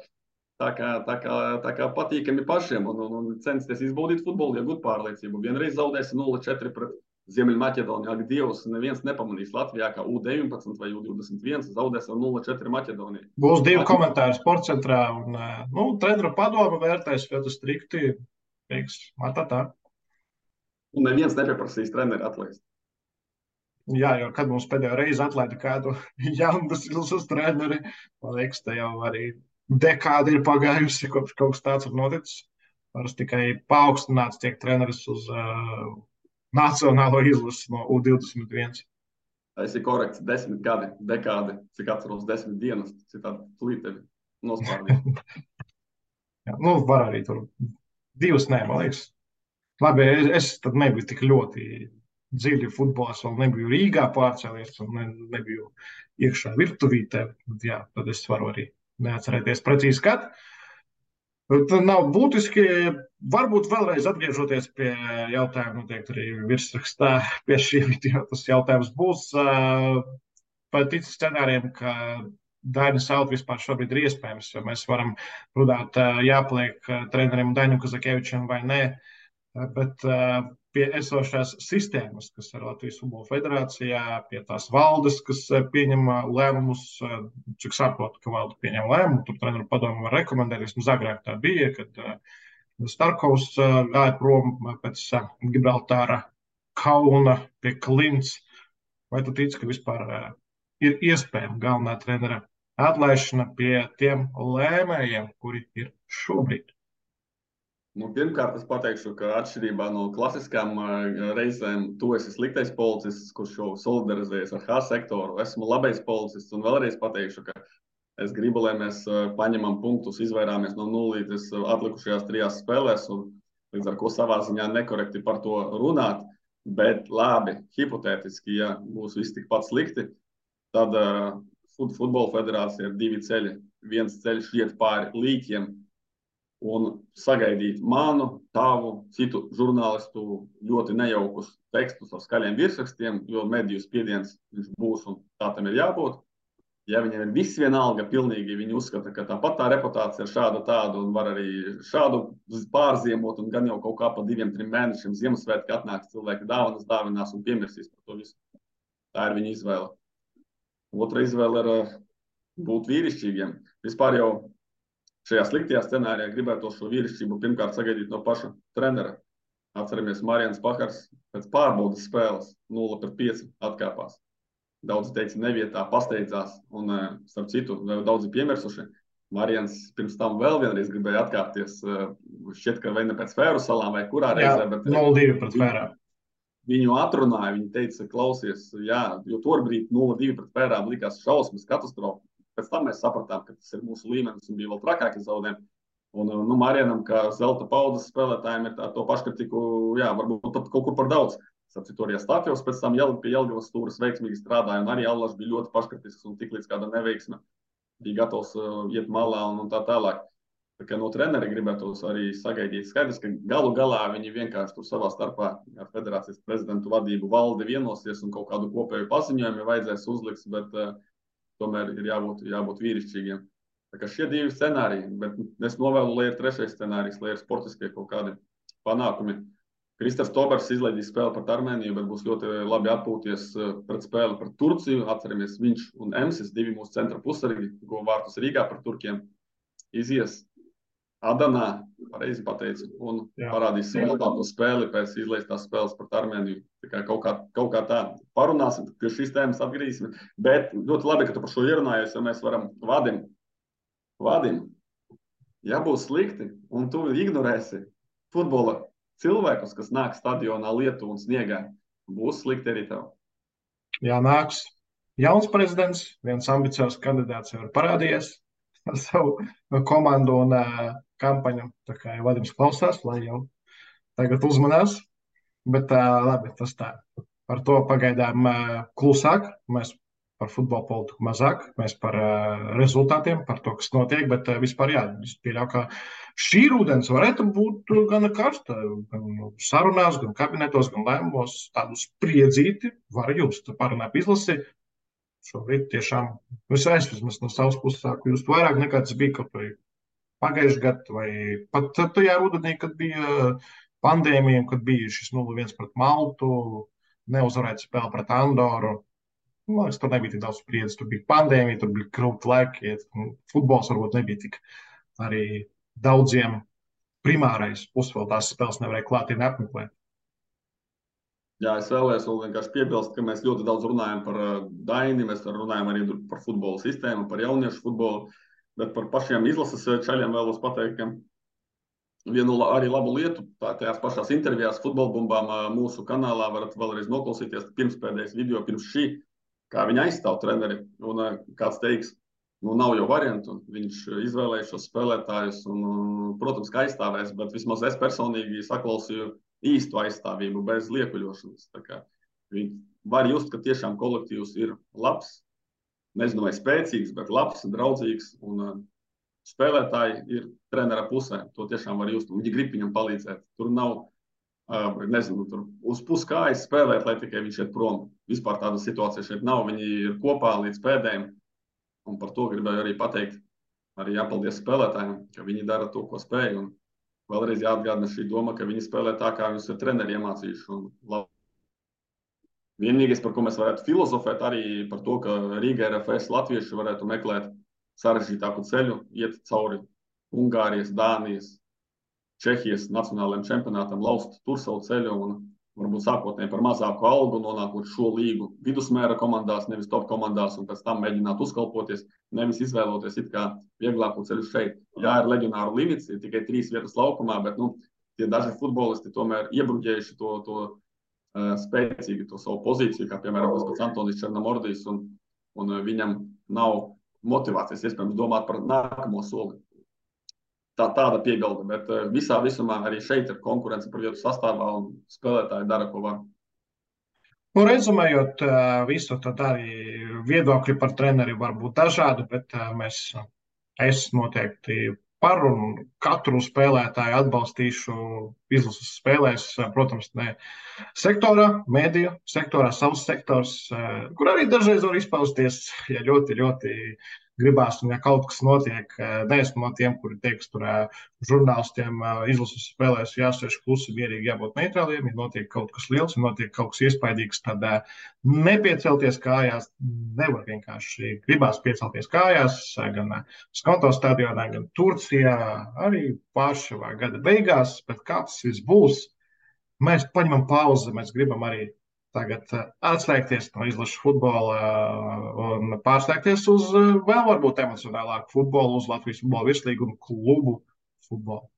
tā kā patīkami pašiem un censties izbaudīt futbolu, iegūt pārliecību. Vienreiz zaudēsi 0-4 pret Ziemeļmaķedoniju. Ak, Dievs, neviens nepamanīs Latvijā, kā U19 vai U21 zaudēs ar 0-4 Maķedoniju. Būs 2 komentāri sportcentrā, un treneru padoma vērtēs ļoti strikti. Teiks, tā. Un neviens nepieprasīs treneri atlaist. Jā, jo kad mums pēdējo reizi atlaida kādu jaunus ilsus treneri, man liekas, te jau arī dekādi ir pagājusi, kopš kaut kas tāds ir noticis. Parasti tikai paaugstināts tiek treneris uz nacionālo izlasi no U21. Tas ir korekts, 10 gadi, dekādi, cik atceros 10 dienas, citādi plītevi nospārnīt. Jā, var arī tur 2, man liekas. Labi, es tad nebiju tik ļoti dziļi futbols, vēl nebiju Rīgā pārcēlies un nebiju iekšā virtuvītē. Jā, tad es varu arī neatcerēties precīzi, kad. Tad nav būtiski, varbūt vēlreiz atgriežoties pie jautājuma, noteikti arī virsrakstā pie šī video tas jautājums būs. Par ticu scenārijiem, ka Dainis Out vispār šobrīd ir iespējams, jo mēs varam runāt, jāpliek trenerim Dainim Kazakevičam vai nē. Bet pie esošās sistēmas, kas ir Latvijas Futbola Federācijā, pie tās valdes, kas pieņem lēmumus, cik saprotu, ka valde pieņem lēmumu, tur treneru padomu var rekomendēt, vismaz agrāk tā bija, kad Starkovs gāja prom pēc Gibraltāra kauna pie Klints. Vai tu tici, ka vispār ir iespējama galvenā trenera atlaišana pie tiem lēmējiem, kuri ir šobrīd? Pirmkārt, es pateikšu, ka atšķirībā no klasiskām reizēm, tu esi sliktais policists, kurš jau solidarizējas ar H sektoru. Esmu labais policists un vēlreiz pateikšu, ka es gribu, lai mēs paņemam punktus, izvairāmies no nulītes atlikušajās 3 spēlēs un līdz ar ko savā ziņā nekorekti par to runāt. Bet labi, hipotētiski, ja būs viss tikpat slikti, tad Futbola federācija ir 2 ceļi. Viens ceļš iet pāri līķiem un sagaidīt manu, tavu, citu žurnālistu ļoti nejaukus tekstus ar skaļiem virsrakstiem, jo mediju spiediens viņš būs un tā tam ir jābūt. Ja viņiem ir viss vienalga, pilnīgi viņi uzskata, ka tāpat tā reputācija ir šāda tāda un var arī šādu pārziemot un gan jau kaut kā pa 2-3 mēnešiem Ziemassvētki atnāks cilvēki dāvinās un piemirsīs par to visu. Tā ir viņa izvēle. Otra izvēle ir būt vīrišķīgiem. Vispār jau šajā sliktajā scenārijā gribētos šo vīrišķību pirmkārt sagaidīt no paša trenera. Atceramies, Marijans Pahars pēc pārbaudas spēles 0-5 atkāpās. Daudzi teica nevietā, pasteidzās un, starp citu, daudzi piemirsuši. Marijans pirms tam vēl vienreiz gribēja atkāpties, šķiet, ka vai ne pēc Fēru salām vai kurā reizē. Jā, 0-2 pret Fērām. Viņu atrunāja, viņi teica, klausies, jā, jo tobrīd 0-2 pret Fērām likās šausmas katastrofa. Pēc tam mēs sapratām, ka tas ir mūsu līmenis un bija vēl trakāki zaudējumi. Un Marijanam, kā zelta paudzes spēlētājiem, ir to paškritiku, jā, varbūt pat kaut kur par daudz. Sapcīt, arī Stāfjovs pēc tam pie Jelgavas stūras veiksmīgi strādāja, un arī Allaš bija ļoti paškritisks un tik līdz kāda neveiksme bija gatavs iet malā un tā tālāk. Tā kā no treneri gribētos arī sagaidīt. Skaidrs, ka galu galā viņi vienkārši tur savā starpā ar federācijas prezidentu vadību valdi vienosies un kaut kādu kopēju paziņojumu vajadzēs uzliks, bet tomēr ir jābūt vīrišķīgiem. Tā kā šie 2 scenāriji, bet es novēlu, lai ir 3. scenārijs, lai ir sportiskie kaut kādi panākumi. Kristers Tobers izlaidīs spēli pret Armēniju, bet būs ļoti labi atpūties pret spēli pret Turciju. Atceramies, viņš un Emsis, 2 mūsu centra pusargi, ko vārtus Rīgā pret Turkiem, izies Adanā, pareizi pateicu, un parādīs savu labāko spēli pēc izlaistās spēles pret Armēniju. Tā kā kaut kā tā parunāsim, pie šīs tēmas atgriezīsim. Bet ļoti labi, ka tu par šo ierunājies, jo mēs varam Vadim, ja būs slikti, un tu ignorēsi futbola cilvēkus, kas nāk stadionā lietu un sniegā, būs slikti arī tev. Jā, nāks jauns prezidents, viens ambiciozs kandidāts jau ir parādījies ar savu komandu un kampaņu. Tā kā jau Vadims klausās, lai jau tagad uzmanās. Bet labi, tas tā. Par to pagaidām klusāk. Mēs par futbola politiku mazāk, mēs par rezultātiem, par to, kas notiek, bet vispār jā, es pieļauju, ka šī rudens varētu būt gan karsta, gan sarunās, gan kabinetos, gan lēmumos tādu spriedzīti var just. Parunāt izlasi, šobrīd tiešām, es vismaz no savas puses sāku just vairāk nekā tas bija kaut vai pagājušajā gadā, vai pat tajā rudenī, kad bija pandēmija, kad bija šis 0-1 pret Maltu, neuzvarēta spēle pret Andoru. Man liekas, tur nebija tik daudz spriedzes, tur bija pandēmija, tur bija grūti laiki. Futbols varbūt nebija tik arī daudziem primārais. Plus vēl tās spēles nevarēja klātienē apmeklēt. Jā, es vēlējos vēl vienkārši piebilst, ka mēs ļoti daudz runājam par Daini, mēs runājam arī par futbola sistēmu, par jauniešu futbolu, bet par pašiem izlases čaļiem vēlos pateikt, ka vienu arī labu lietu, tajās pašās intervijās futbolbumbām mūsu kanālā varat vēlreiz noklausīties pirmspēdējais video pirms šī, kā viņi aizstāv treneri, un kāds teiks, nav jau variantu, viņš izvēlēja šos spēlētājus, un, protams, ka aizstāvēs, bet vismaz es personīgi saklausīju īstu aizstāvību bez liekuļošanas. Tā kā viņi var just, ka tiešām kolektīvs ir labs, nezinu, vai spēcīgs, bet labs, draudzīgs, un spēlētāji ir trenera pusē. To tiešām var just, un viņi grib viņam palīdzēt. Tur nav, nezinu, tur uz puskājas spēlēt, lai tikai viņš iet prom. Vispār tāda situācija šeit nav, viņi ir kopā līdz pēdējiem, un par to gribēju arī pateikt, arī jāpaldies spēlētājiem, ka viņi dara to, ko spēj, un vēlreiz jāatgādina šī doma, ka viņi spēlē tā, kā viņus ir treneri iemācījuši. Vienīgais, par ko mēs varētu filozofēt, arī par to, ka Rīga RFS latvieši varētu meklēt sarežģītāku ceļu, iet cauri Ungārijas, Dānijas, Čehijas nacionālajiem čempionātam, laust tur savu ceļu un varbūt sākotnēji par mazāku algu, nonākot šo līgu vidusmēra komandās, nevis top komandās, un pēc tam mēģināt uzkalpoties, nevis izvēloties it kā vieglāku ceļu šeit. Jā, ir leģionāru limits, ir tikai 3 vietas laukumā, bet tie daži futbolisti tomēr iebruģējuši to spēcīgi, to savu pozīciju, kā piemēram tas pats Antonis Černomordijs, un viņam nav motivācijas, iespējams, domāt par nākamo soli. Tāda piebilde, bet visā visumā arī šeit ir konkurence par vietu sastāvā un spēlētāji dara, ko var. Rezumējot visu, tad arī viedokļi par treneri var būt dažādi, bet es noteikti par un katru spēlētāju atbalstīšu izlases spēlēs, protams, ne sektorā, mēdīju sektorā, savs sektors, kur arī dažreiz var izpausties, ja ļoti, ļoti gribās, un ja kaut kas notiek, neesmu no tiem, kuri teiks, tur žurnālistiem izlases spēlēs jāsēž klusi, mierīgi jābūt neitrāliem, ja notiek kaut kas liels, ja notiek kaut kas iespaidīgs, tad nepiecelties kājās, nevar vienkārši gribās piecelties kājās, gan Skonto stadionā, gan Turcijā, arī Pāršavā gada beigās, bet kā tas viss būs, mēs paņemam pauzi, mēs gribam arī tagad atslēgties no izlašu futbola un pārslēgties uz vēl varbūt emocionālāku futbolu, uz Latvijas futbola virslīgu un klubu futbolu.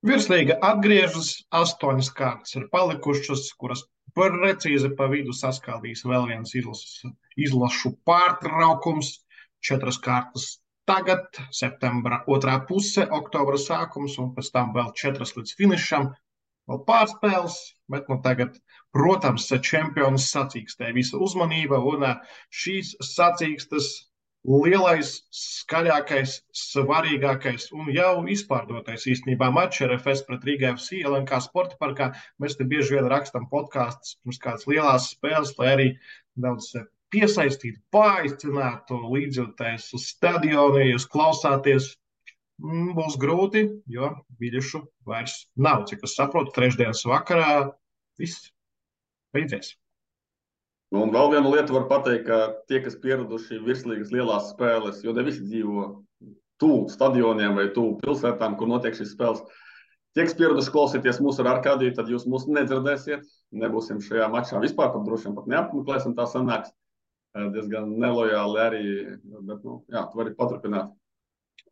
Virslīga atgriežas, 8 kārtas ir palikušas, kuras precīzi pa vidu saskaldīs vēl viens izlašu pārtraukums, 4 kārtas tagad, septembra 2. puse, oktobra sākums, un pēc tam vēl 4 līdz finišam, vēl pārspēles, bet tagad, protams, čempions sacīkstē visa uzmanība, un šīs sacīkstes lielais, skaļākais, svarīgākais un jau izpārdotais īstenībā mačs RFS pret Rīga FC LNK sporta parkā. Mēs te bieži vien rakstam podkastus pirms kādas lielās spēles, lai arī daudz piesaistītu, paaicinātu līdzjūtējus uz stadionu, ja jūs klausāties, būs grūti, jo biļešu vairs nav. Cik es saprotu, trešdienas vakarā viss beidzies. Un vēl vienu lietu var pateikt, ka tie, kas pieraduši virslīgas lielās spēles, jo ne visi dzīvo tuvu stadioniem vai tuvu pilsētām, kur notiek šīs spēles, tie, kas pieraduši klausīties mūsu ar Arkādiju, tad jūs mūs nedzirdēsiet, nebūsim šajā mačā vispār, pat droši vien pat neapmeklēsim, tā sanāks diezgan nelojāli arī, bet, jā, tu vari paturpināt.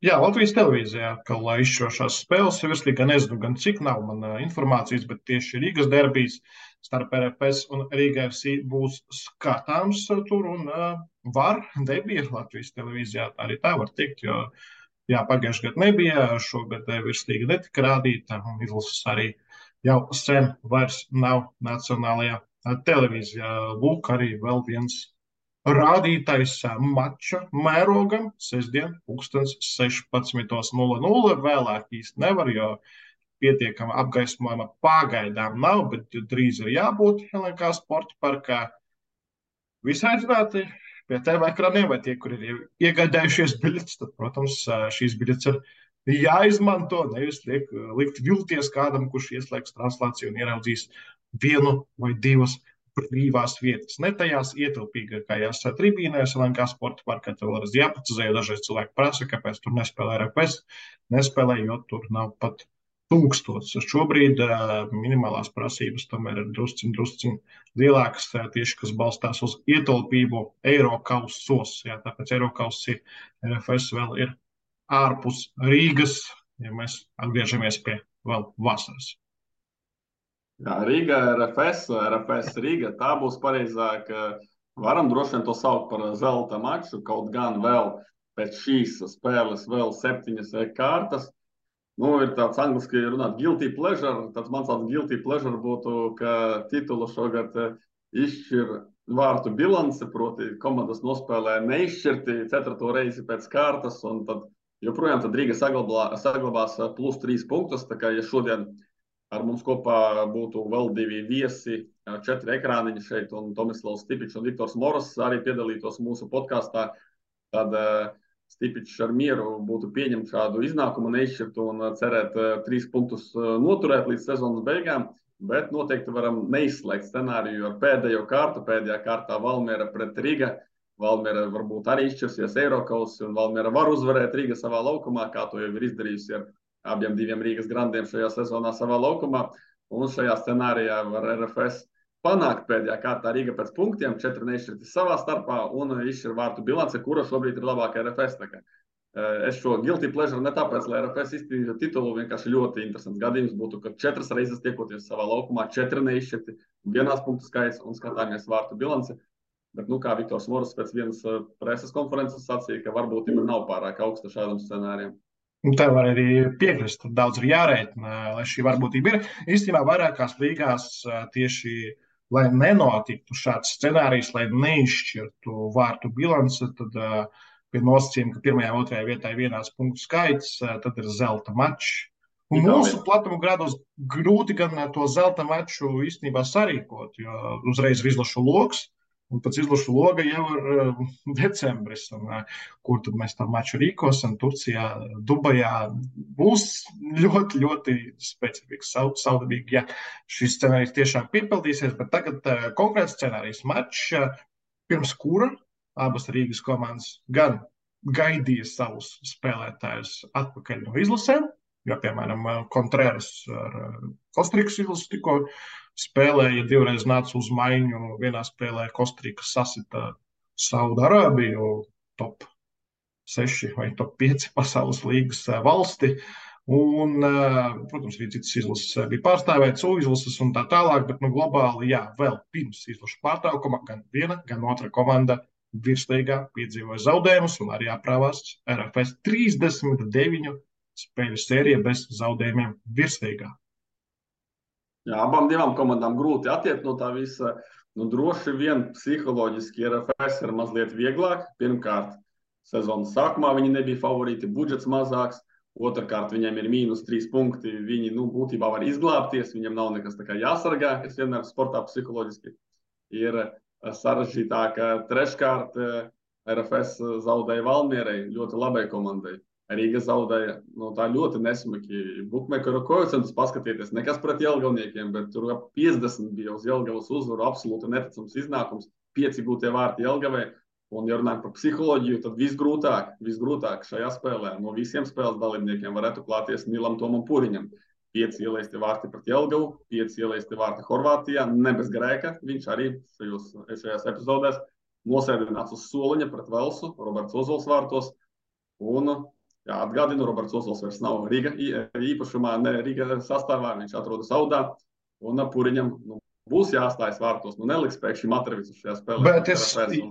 Jā, Latvijas televīzijā atkal izšķirošās spēles virslīgā, nezinu gan cik nav man informācijas, bet tieši Rīgas derbijs starp RFS un Rīga FC būs skatāms tur un debija Latvijas televīzijā, arī tā var teikt, jo jā, pagājušajā gadā nebija, šogad virslīga netika rādīta un izlases arī jau sen vairs nav nacionālajā televīzijā. Lūk, arī vēl viens rādītais mača mērogam sestdien, 16:00. Vēlāk īsti nevar, jo pietiekama apgaismojuma pagaidām nav, bet drīz ir jābūt LNK sporta parkā. Visi aicināti pie TV ekraniem, vai tie, kur ir iegādājušies biļetes, tad, protams, šīs biļetes ir jāizmanto, nevis likt vilties kādam, kurš ieslēgs translāciju un ieraudzīs vienu vai divas brīvās vietas. Ne tajās ietilpīgākajās tribīnēs, LNK sporta parkā, tev vēlreiz jāprecizē, jo dažreiz cilvēki prasa, kāpēc tur nespēlē RFS, nespēlē, jo tur nav pat 1000. Šobrīd minimālās prasības tomēr ir drusciņ lielākas, tieši kas balstās uz ietilpību Eirokausos. Jā, tāpēc Eirokausi RFS vēl ir ārpus Rīgas, ja mēs atgriežamies pie vēl vasaras. Jā, Rīga, RFS Rīga, tā būs pareizāk. Varam droši vien to saukt par zelta maču, kaut gan vēl pēc šīs spēles vēl 7 kārtas. Ir tāds angliski runāt guilty pleasure. Tāds mans guilty pleasure būtu, ka titulu šogad izšķir vārtu bilance, proti komandas nospēlē neizšķirti 4. reizi pēc kārtas, un tad joprojām Rīga saglabās +3 punktus. Tā kā, ja šodien ar mums kopā būtu vēl 2 viesi, 4 ekrāniņi šeit, un Tomislavs Stipičs un Viktors Moros arī piedalītos mūsu podkāstā, tad Stipičs ar mieru būtu pieņemt šādu iznākumu neizšķirtu un cerēt 3 punktus noturēt līdz sezonas beigām, bet noteikti varam neizslēgt scenāriju ar pēdējo kārtu. Pēdējā kārtā Valmiera pret Riga. Valmiera varbūt arī izšķirsies Eirokausi, un Valmiera var uzvarēt Riga savā laukumā, kā to jau ir izdarījusi ar abiem 2 Rīgas grandiem šajā sezonā savā laukumā. Un šajā scenārijā var RFS panākt pēdējā kārtā Rīga pēc punktiem, 4 neizšķirti savā starpā un izšķir vārtu bilance, kura šobrīd ir labākā RFS. Es šo guilty pleasure ne tāpēc, lai RFS izcīnītu titulu, vienkārši ļoti interesants gadījums būtu, ka 4 reizes tiekoties savā laukumā, 4 neizšķirti, vienās punktu skaits un skatāmies vārtu bilanci. Bet, kā Viktors Moros pēc vienas preses konferences sacīja, ka varbūtība nav pārāk augsta šādam scenārijam. Tev var arī piekrist, tur daudz ir jārēķina, lai šī varbūtība ir. Īstenībā vairākās līgās tieši, lai nenotiktu šāds scenārijs, lai neizšķirtu vārtu bilanci, tad pie nosacījuma, ka 1. un 2. vietā ir vienāds punktu skaits, tad ir zelta mačs. Un mūsu platuma grados grūti gan to zelta maču īstenībā sarīkot, jo uzreiz ir izlašu loks, un pēc izlašu loga jau ir decembris, un kur tad mēs tā maču rīkosim, Turcijā, Dubajā, būs ļoti, ļoti specifisks, saudabīgi, ja šis scenārijs tiešām piepildīsies, bet tagad konkrēts scenārijs mačs, pirms kura abas Rīgas komandas gan gaidīja savus spēlētājus atpakaļ no izlasēm, jo, piemēram, Contreras ar Kostrikas izlasu tikko spēlēja, 2 reizes nāca uz maiņu. Vienā spēlē Kostrika sasita Saudarābiju, top 6 vai top 5 pasaules līgas valsti. Un, protams, arī citas izlases bija pārstāvētas, izlases un tā tālāk, bet globāli, jā, vēl pirms izlašu pārtraukuma gan viena, gan otra komanda virslīgā piedzīvoja zaudējumus un arī aprāvās RFS 39 spēļu sērija bez zaudējumiem virslīgā. Jā, abām 2 komandām grūti attiekt no tā visa. Droši vien psiholoģiski RFS ir mazliet vieglāk. Pirmkārt, sezonas sākumā viņi nebija favorīti, budžets mazāks. Otrkārt, viņiem ir -3 punkti. Viņi būtībā var izglābties, viņiem nav nekas tā kā jāsargā, kas vienmēr sportā psiholoģiski ir sarežģītāk. Treškārt, RFS zaudēja Valmierai, ļoti labai komandai. Rīga zaudēja tā ļoti nesmaki. Bukmekeru koeficientus paskatieties, nekas pret Jelgavniekiem, bet tur 50 bija uz Jelgavas uzvaru, absolūti neticams iznākums, 5 gūtie vārti Jelgavai. Un, ja runājam par psiholoģiju, tad visgrūtāk šajā spēlē no visiem spēles dalībniekiem varētu klāties Nilam Tomam Puriņam. 5 ielaisti vārti pret Jelgavu, 5 ielaisti vārti Horvātijā, ne bez grēka. Viņš arī šajās epizodēs nosēdināts uz soliņa pret Velsu, Roberts Ozols vārtos. Un atgādinu, Roberts Ozols vairs nav Rīga īpašumā, ne Rīga sastāvā, viņš atrodas Audā, un Puriņam būs jāstājas vārtos. Neliks pēkšņi Matrevicu šajā spēlē. Bet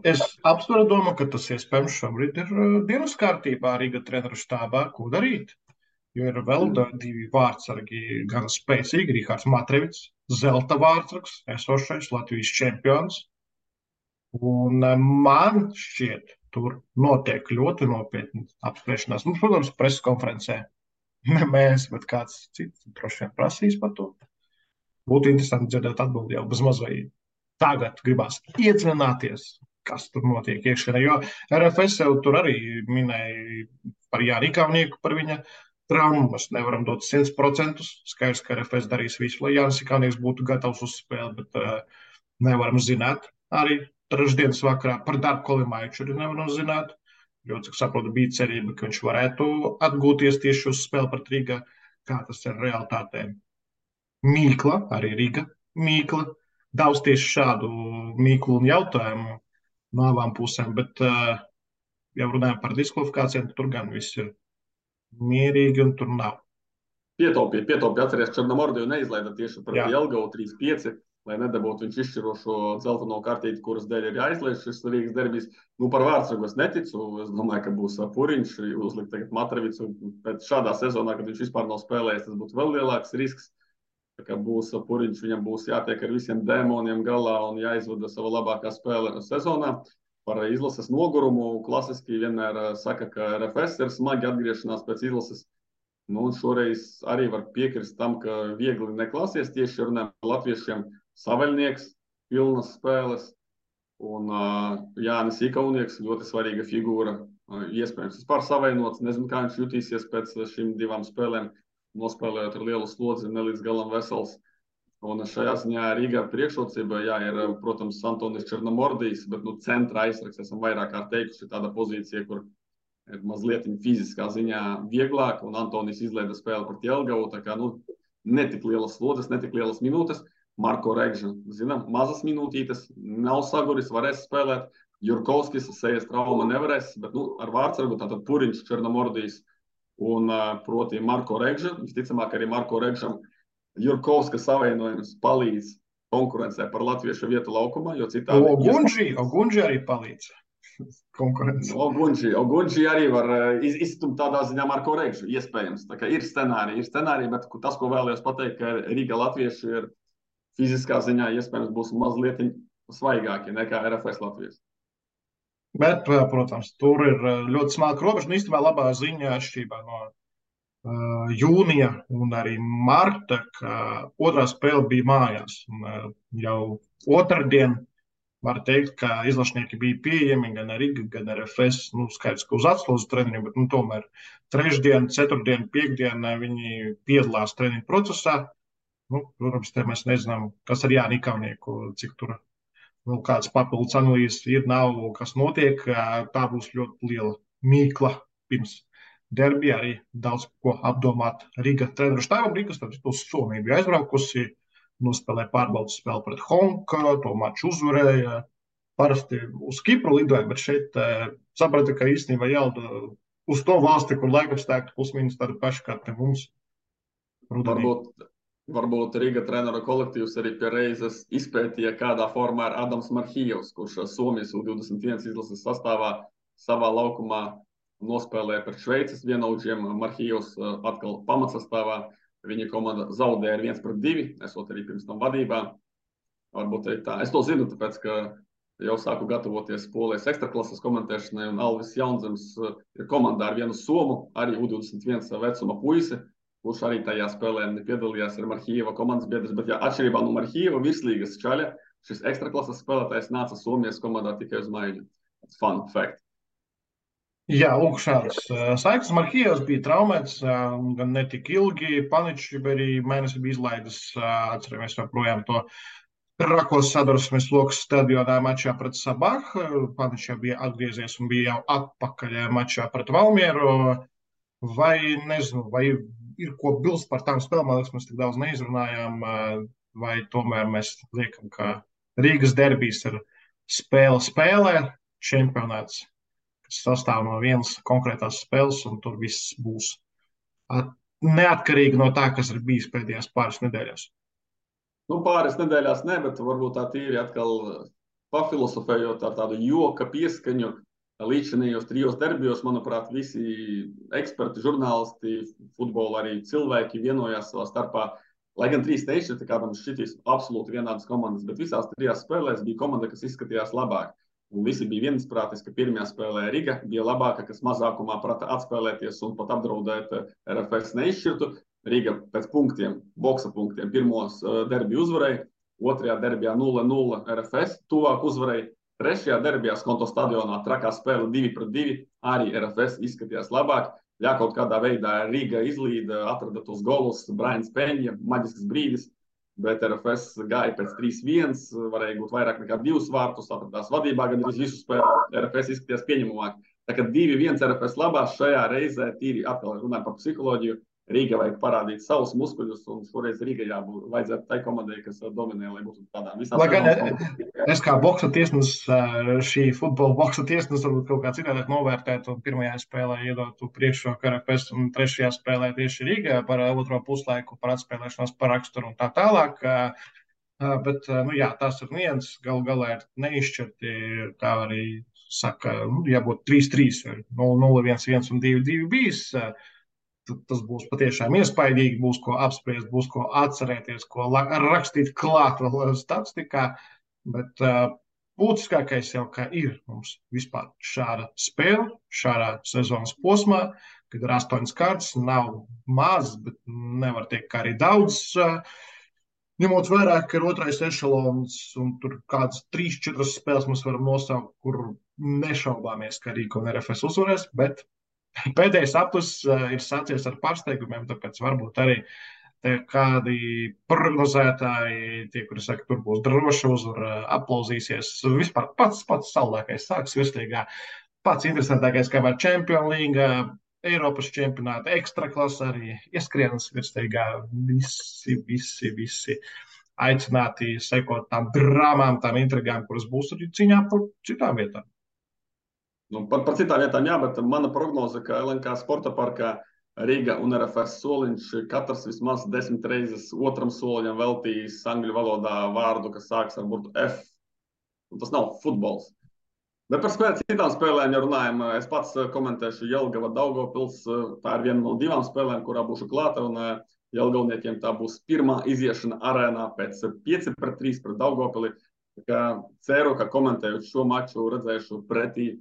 es apsveru domu, ka tas iespējams šobrīd ir dienas kārtībā Rīga treneru štābā, ko darīt. jo ir vēl divi vārdsargi, gan spēcīgi, Rihards Matrevits, zelta vārdsargs, esošais Latvijas čempions. Un man šķiet, tur notiek ļoti nopietni apspriešanās. Nu, protams, preses konferencē ne mēs, bet kāds cits droši vien prasīs par to. Būtu interesanti dzirdēt atbildi jau bez mazliet. Tagad gribās iedziļināties, kas tur notiek iekšienē. Jo RFS jau tur arī minēja par Jāni Ikaunieku, par viņa traumu. Mēs nevaram dot 100%. Skaidrs, ka RFS darīs visu, lai Jānis Ikaunieks būtu gatavs uz spēli, bet nevaram zināt. Arī trešdienas vakarā par Darku Kolimaiču arī nevaram zināt. Jo, cik saprotu, bija cerība, ka viņš varētu atgūties tieši uz spēli pret Rīgā, kā tas ir realitātē. Mīkla, arī Rīga mīkla. Daudz tieši šādu mīklu un jautājumu no abām pusēm, bet jau runājam par diskvalifikācijām, tur gan viss ir mierīgi un tur nav. Pietaupīja, atceries, Černomordiju neizlaida tieši pret Jelgavu 3-5, lai nedabūtu viņš izšķirošo dzelteno kartīti, kuras dēļ ir jāizlaiž šis Rīgas derbijs. Nu, par vārdsargu es neticu, es domāju, ka būs Puriņš, uzlikt tagad Matrevits, bet šādā sezonā, kad viņš vispār nav spēlējis, tas būtu vēl lielāks risks. Ka būs Puriņš, viņam būs jātiek ar visiem dēmoniem galā un jāizvada sava labākā spēle sezonā. Par izlases nogurumu klasiski vienmēr saka, ka RFS ir smagi atgriešanās pēc izlases. Nu, un šoreiz arī var piekrist tam, ka viegli neklāsies tieši runājot par latviešiem. Saveļnieks, pilnas spēles un Jānis Ikaunieks, ļoti svarīga figūra. Iespējams, vispār savainots, nezinu, kā viņš jutīsies pēc šīm divām spēlēm. Nospēlējot ar lielu slodzi, ne līdz galam vesels. Un šajā ziņā Rīgā priekšrocība, ir, protams, Antonis Černomordijs, bet centra aizsargs esam vairāk kārt teikuši, tāda pozīcija, kur ir mazliet fiziskā ziņā vieglāk, un Antonis izlaida spēli pret Jelgavu, tā kā, netik lielas slodzes, netik lielas minūtes. Marko Regža, zinām, mazas minūtītes, nav saguris, varēs spēlēt. Jurkovskis, sejas trauma nevarēs, bet, ar vārdsargu, tātad Puriņš, Černomordijs, un proti Marko Regža, visticamāk arī Marko Regžam Jurkovska savienojums palīdz konkurencē par latviešu vietu laukumā, jo citādi... Ogunži arī palīdz konkurencē. Ogunži arī var izstumt tādā ziņā Marko Regžu, iespējams. Tā kā ir scenāriji, bet tas, ko vēlējos pateikt, ka Rīga latvieši ir fiziskā ziņā iespējams būs mazliet svaigāki nekā RFS Latvijas. Bet, protams, tur ir ļoti smalka robeža. Un īstenībā labā ziņa atšķirībā no jūnija un arī marta, ka otrā spēle bija mājās. Un, jau otrdien var teikt, ka izlašnieki bija pieejami gan Riga, gan RFS. Skaidrs, ka uz atslodzi treniņu, bet tomēr trešdien, ceturtdien, piekdien viņi piedalās treniņu procesā. Protams, te mēs nezinām, kas ar Jāni Ikaunieku, cik tur kādas papildus analīzes ir, nav, kas notiek. Tā būs ļoti liela mīkla pirms derbija, arī daudz ko apdomāt Riga treneru štābam. Rigas tad uz Somiju bija aizbraukusi, nospēlēja pārbaudas spēli pret Honka, to maču uzvarēja. Parasti uz Kipru lidoja, bet šeit saprata, ka īstenībā jālda uz to valsti, kur laikapstākļi plus mīnus tādi paši kā te mums. Varbūt Riga treneru kolektīvs arī pie reizes izpētīja, kādā formā ir Adams Marhijevs, kurš Somijas U21 izlases sastāvā savā laukumā nospēlēja pret Šveices vienaudžiem. Marhijevs atkal pamatsastāvā. Viņa komanda zaudēja ar 1-2, esot arī pirms tam vadībā. Varbūt arī tā. Es to zinu, tāpēc, ka jau sāku gatavoties Polijas ekstraklases komentēšanai, un Alvis Jaunzems ir komandā ar vienu somu, arī U21 vecuma puisi, kurš arī tajā spēlē piedalījās ar Marhijeva komandas biedrs, bet atšķirībā no Marhijeva virslīgas čaļa, šis ekstraklases spēlētājs nāca Somijas komandā tikai uz maiņu. Fun fact. Jā, lūk, šāds saiknes. Marhijevs bija traumēts, gan ne tik ilgi. Paničs arī mēnesi bija izlaidis, atceramies joprojām to Rakos sadursmes lokas stadionā mačā pret Sabahu. Paničs bija atgriezies un bija jau atpakaļ mačā pret Valmieru. Vai ir ko bilst par tām spēlēm, man liekas, mēs tik daudz neizrunājām, vai tomēr mēs liekam, ka Rīgas derbijs ir spēlē, čempionāts, kas sastāv no vienas konkrētās spēles, un tur viss būs neatkarīgi no tā, kas ir bijis pēdējās pāris nedēļās. Pāris nedēļās ne, bet varbūt tā tīri atkal pafilosofējot ar tādu joka pieskaņu. līdzinājos 3 derbijos, manuprāt, visi eksperti, žurnālisti, futbola arī cilvēki vienojās savā starpā. Lai gan 3 nešķirti, kādam šķitīs absolūti vienādas komandas, bet visās 3 spēlēs bija komanda, kas izskatījās labāk. Un visi bija viensprātis, ka pirmajā spēlē Riga bija labāka, kas mazākumā prata atspēlēties un pat apdraudēt RFS neizšķirtu. Riga pēc punktiem, boksa punktiem, pirmos derbiju uzvarēja, 2. derbijā 0-0 RFS, tuvāk uzvarēja, 3. derbijā Skonto stadionā trakā spēle 2-2, arī RFS izskatījās labāk. Ja kaut kādā veidā Riga izlīda, atrada tos golus, Brains Peņa, maģisks brīdis, bet RFS gāja pēc 3-1, varēja būt vairāk nekā 2 vārtus, atradās vadībā, gan arī visu spēli RFS izskatījās pieņemamāk. Tā kā 2-1 RFS labās šajā reizē, tīri atkal runājot par psiholoģiju, Rīga vajag parādīt savus muskuļus, un šoreiz Rīga vajadzētu tai komandai, kas dominē, lai būtu tādām visām. Lai gan es kā boksa tiesnesis, šī futbola boksa tiesnesis varbūt kaut kā citādāk novērtētu, un pirmajā spēlē iedotu priekšroku RFS, un 3. spēlē tieši Rīgā par otro puslaiku, par atspēlēšanos, par raksturu un tā tālāk. Bet, tās ir nianses, galu galā ir neizšķirti, kā arī saka, jābūt 3-3 vai 0-1-1 un 2-2 bijis. Tas būs patiešām iespaidīgi, būs ko apspriest, būs ko atcerēties, ko rakstīt klāt vēl statistikā, bet būtiskākais jau kā ir mums vispār šāda spēle, šādā sezonas posmā, kad ir 8 kārtas, nav maz, bet nevar teikt, ka arī daudz, ņemot vērā, ka ir 2. ešalons un tur kādas 3-4 spēles mēs varam nosaukt, kur nešaubāmies, ka Rīga un RFS uzvarēs, bet pēdējais aplis ir sācies ar pārsteigumiem, tāpēc varbūt arī kādi prognozētāji, tie, kuri saka, tur būs droša uzvara, aplauzīsies. Vispār pats saldākais sāks virslīgā, pats interesantākais, kā var Champions League, Eiropas čempionāta, ekstraklasa arī ieskrienas virslīgā. Visi aicināti sekot tām drāmām, tām intrigām, kuras būs arī cīņā par citām vietām. Par citām vietām, jā, bet mana prognoze, ka LNK sporta parkā Riga un RFS soliņš katrs vismaz 10 reizes otram soliņam veltījis angļu valodā vārdu, kas sāks ar burtu F. Un tas nav futbols. Bet par citām spēlēm, ja runājam, es pats komentēšu Jelgava Daugavpils. Tā ir viena no 2 spēlēm, kurā būšu klāta, un Jelgavniekiem tā būs pirmā iziešana arēnā pēc 5-3 pret Daugavpili. Ceru, ka komentējot šo maču redzēšu pretī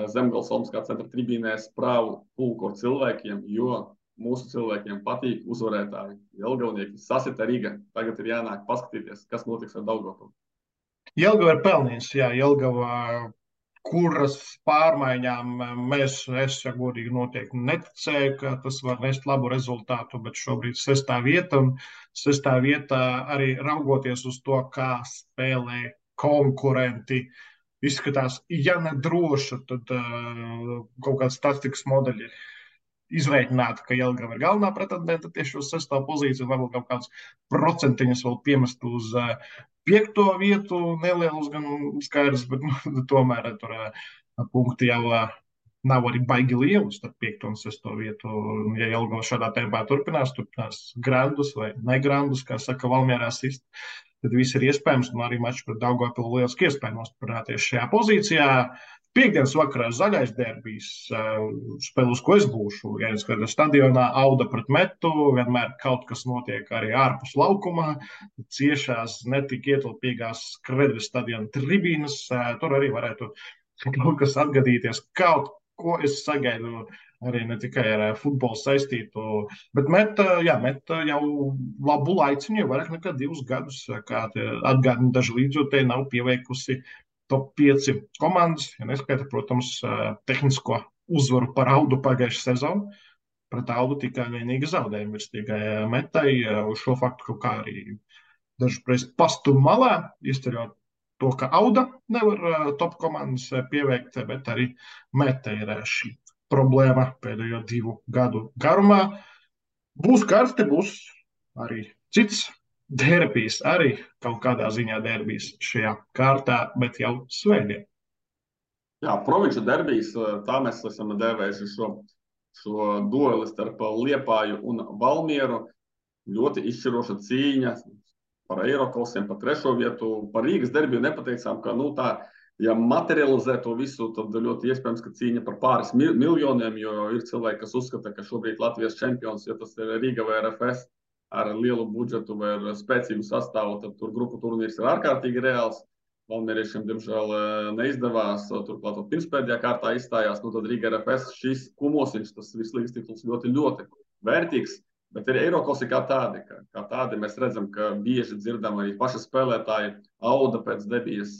Zemgales Olmskā centra tribīnēs prāvu pulku ar cilvēkiem, jo mūsu cilvēkiem patīk uzvarētāji. Jelgavnieki sasita Riga. Tagad ir jānāk paskatīties, kas notiks ar Daugavpili. Jelgava ir pelnījusi, jā, Jelgava, kuras pārmaiņām es, ja godīgi noteikti neticēju, ka tas var nest labu rezultātu, bet šobrīd 6. vieta, un 6. vietā arī raugoties uz to, kā spēlē konkurenti, izskatās, ja ne droša, tad kaut kāds statistikas modeļi izreikināti, ka Jelgava ir galvenā pretendente tieši uz 6. pozīciju, varbūt kaut kāds procentiņus vēl piemest uz 5. vietu, nelielus gan skaidrs, bet tomēr tur punkti jau nav arī baigi lieli starp 5. un 6. vietu. Ja Jelgava šādā tempā turpinās grandus vai negrandus, kā saka Valmierā sist, tad viss ir iespējams, un arī mačs pret Daugavpilu lieliski iespēja nostiprināties šajā pozīcijā. Piektdienas vakarā zaļais derbijs, spēle, uz ko es būšu. Ja es skatos stadionā, Auda pret Metu, vienmēr kaut kas notiek arī ārpus laukumā, ciešās, netik ietilpīgās Kredvis stadiona tribīnas, tur arī varētu kaut kas atgadīties, kaut ko es sagaidu arī ne tikai ar futbolu saistītu, bet Meta jau labu laiciņu, jau vairāk nekā 2 gadus, kā atgādina daži līdzjūtēji, nav pieveikusi top 5 komandas, ja neskaita, protams, tehnisko uzvaru par Audu pagājušā sezonu. Pret Audu tikai vienīgi zaudējumi virslīgai Metai, uz šo faktu kaut kā arī dažreiz pastum malā, izceļot to, ka Auda nevar top komandas pieveikt, bet arī Meta ir šī problēma pēdējo 2 gadu garumā. Būs karsti, būs arī cits derbijs, arī kaut kādā ziņā derbijs šajā kārtā, bet jau svētdien. Jā, provinču derbijs, tā mēs esam dēvējuši šo dueli starp Liepāju un Valmieru. Ļoti izšķiroša cīņa par Eiroklasiem, par 3. vietu. Par Rīgas derbiju nepateicām, ka tā ja materializē to visu, tad ļoti iespējams, ka cīņa par pāris miljoniem, jo ir cilvēki, kas uzskata, ka šobrīd Latvijas čempions, ja tas ir Riga vai RFS ar lielu budžetu vai ar spēcīgu sastāvu, tad tur grupu turnīrs ir ārkārtīgi reāls. Valmieriešiem, diemžēl, neizdevās, turklāt pirmspēdējā kārtā izstājās, nu tad Riga RFS šis kumosiņš, tas virslīgas tituls ļoti, ļoti vērtīgs, bet ir Eirokausi kā tādi. Kā tādi mēs redzam, ka bieži dzirdam arī paši spēlētāji Auda pēc debijas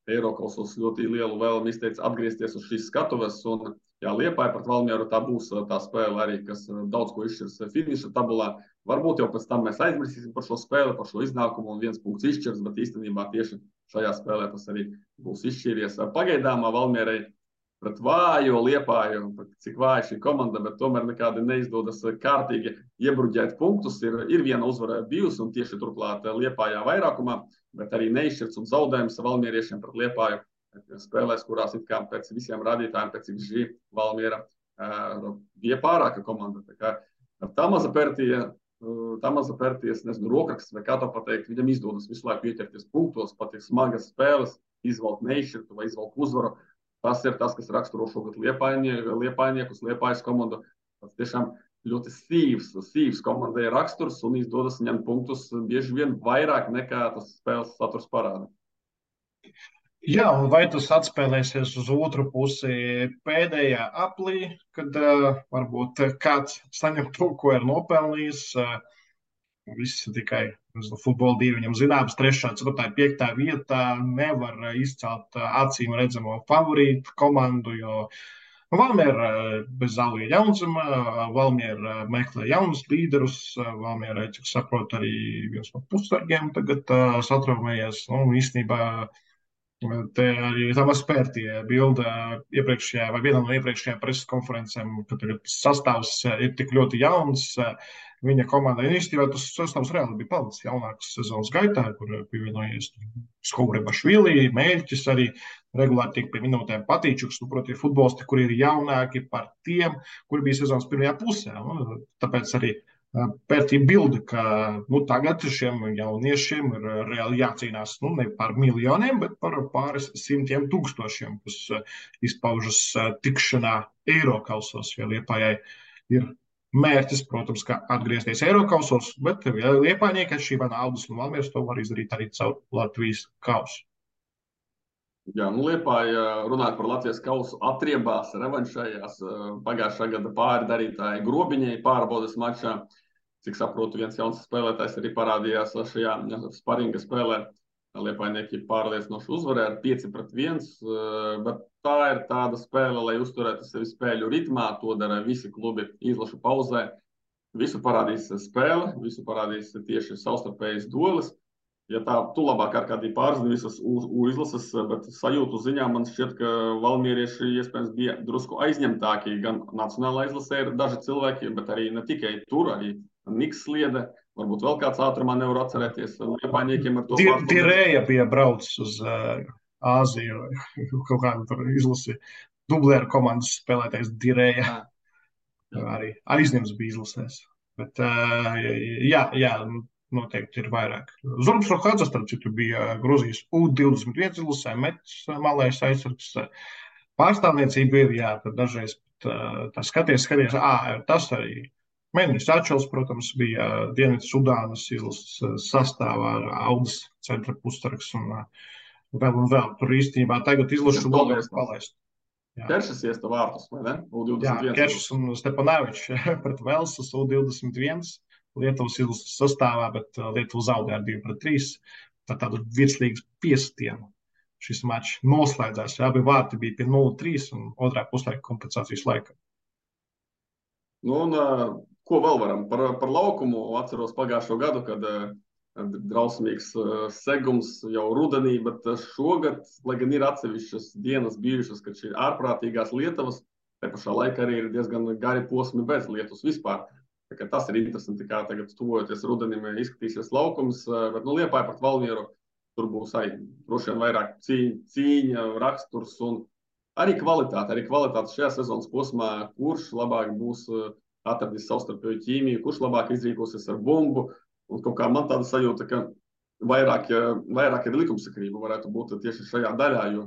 Eirokausos ļoti lielu vēlmi izteica atgriezties uz šīs skatuves, un Liepāja pret Valmieru tā būs tā spēle arī, kas daudz ko izšķirs finiša tabulā. Varbūt jau pēc tam mēs aizmirsīsim par šo spēli, par šo iznākumu un viens punkts izšķirs, bet īstenībā tieši šajā spēlē tas arī būs izšķīries. Pagaidām Valmierai pret vājo Liepāju, cik vāja šī komanda, bet tomēr nekādi neizdodas kārtīgi iebruģēt punktus. Ir viena uzvara bijusi un tieši turklāt Liepājā vairākumā, bet arī neizšķirts un zaudējums Valmieriešiem pret Liepāju spēlēs, kurās it kā pēc visiem rādītājiem, pēc XG Valmiera bija pārāka komanda. Tā kā tā maza pērties, nezinu, rokraksts vai kā to pateikt, viņam izdodas visu laiku ieķerties punktos, pat ir smagas spēles, izvalkt neizšķirtu vai izvalkt uzvaru. Tas ir tas, kas raksturo šogad Liepājniekus, Liepājas komandu. Tas tiešām ļoti sīvs komandai raksturs un izdodas ņemt punktus bieži vien vairāk nekā tas spēles saturs parāda. Jā, un vai tas atspēlēsies uz otru pusi pēdējā aplī, kad varbūt kāds saņem to, ko ir nopelnījis. Viss tikai futbola divi viņam zināms, 3., 4., 5. vietā nevar izcelt acīm redzamo favorītu komandu, jo Valmiera bez Zālija Jaunzema, Valmiera meklē jaunus līderus, Valmiera, cik saprot, arī viens no pussargiem tagad satraumējies, īstenībā te arī Tamas Pērtie bilda iepriekšējā vai vienā no iepriekšējām preses konferencēm, ka tagad sastāvs ir tik ļoti jauns. Viņa komandai īstenībā tas sastāvs reāli bija palicis jaunāks sezonas gaitā, kur pievienojies Skourebašvili, Mēļķis arī regulāri tiek pie minūtēm Patīčuks. Proti, ir futbolisti, kuri ir jaunāki par tiem, kuri bija sezonas pirmajā pusē. Tāpēc arī Pērtī bilda, ka tagad šiem jauniešiem ir reāli jācīnās ne par miljoniem, bet par pāris 100 000, kas izpaužas tikšanā Eirokausos, jo Liepājai ir mērķis, protams, ka atgriezties Eirokausos, bet Liepājnieki atšķirībā no Audas un Valmieras to var izdarīt arī caur Latvijas kausu. Jā, Liepāja runājot par Latvijas kausu atriebās, revanšējās pagājušā gada pārdarītāji Grobiņai pārbaudes mačā. Cik saprotu, viens jauns spēlētājs arī parādījās šajā sparinga spēlē. Liepājnieki pārliecinoši uzvarēja ar 5-1, bet tā ir tāda spēle, lai uzturētu sevi spēļu ritmā. To dara visi klubi izlašu pauzē. Visu parādīs spēle, visu parādīs tieši savstarpējas duelis. Ja tā, tu labāk ar kādī pārzini visas izlases, bet sajūtu ziņā man šķiet, ka valmierieši iespējams bija drusku aizņemtāki. Gan nacionālā izlasē ir daži cilvēki, bet arī ne tikai tur, arī Niks Sliede, varbūt vēl kāds ātrumā nevar atcerēties. Liepājniekiem ar to Dirēja bija braucis uz Āziju, kaut kādu tur izlasi. Dublēra komandas spēlētājs Dirēja arī aizņems bija izlasēs. Bet jā, noteikti ir vairāk. Zurbs Rohadzas, starp citu, bija Gruzijas U21 izlasē, Mets malais aizsargs. Pārstāvniecība ir, tad dažreiz tā skaties, tas arī. Mēnesis Ačels, protams, bija Dienvidu Sudānas izlases sastāvā ar Audas centra pussargs un vēl. Tur īstenībā tagad izlašu vēl palaist. Keršas iesta vārtus, vai ne? U21. Jā, Keršas un Stepanēvičs pret Velsas U21 Lietuvas izlases sastāvā, bet Lietuva zaudēja ar 2-3. Tādu virslīgas piestienu šis mačs noslēdzās. Abi vārti bija pie 0-3 un otrā puslaika kompensācijas laika. Ko vēl varam par laukumu? Atceros pagājušo gadu, kad drausmīgs segums jau rudenī, bet šogad, lai gan ir atsevišķas dienas bijušas, kad šī ārprātīgās lietavas, te pašā laikā arī ir diezgan gari posmi bez lietus vispār. Tas ir interesanti, kā tagad tuvojoties rudenim izskatīsies laukums, bet Liepāja pret Valmieru tur būs arī droši vien vairāk cīņa, raksturs un arī kvalitāte. Arī kvalitāte šajā sezonas posmā, kurš labāk būs atradis savstarpēju ķīmiju, kurš labāk izrīkosies ar bumbu. Un kaut kā man tāda sajūta, ka vairāk ir likumsakrība, varētu būt tieši šajā daļā, jo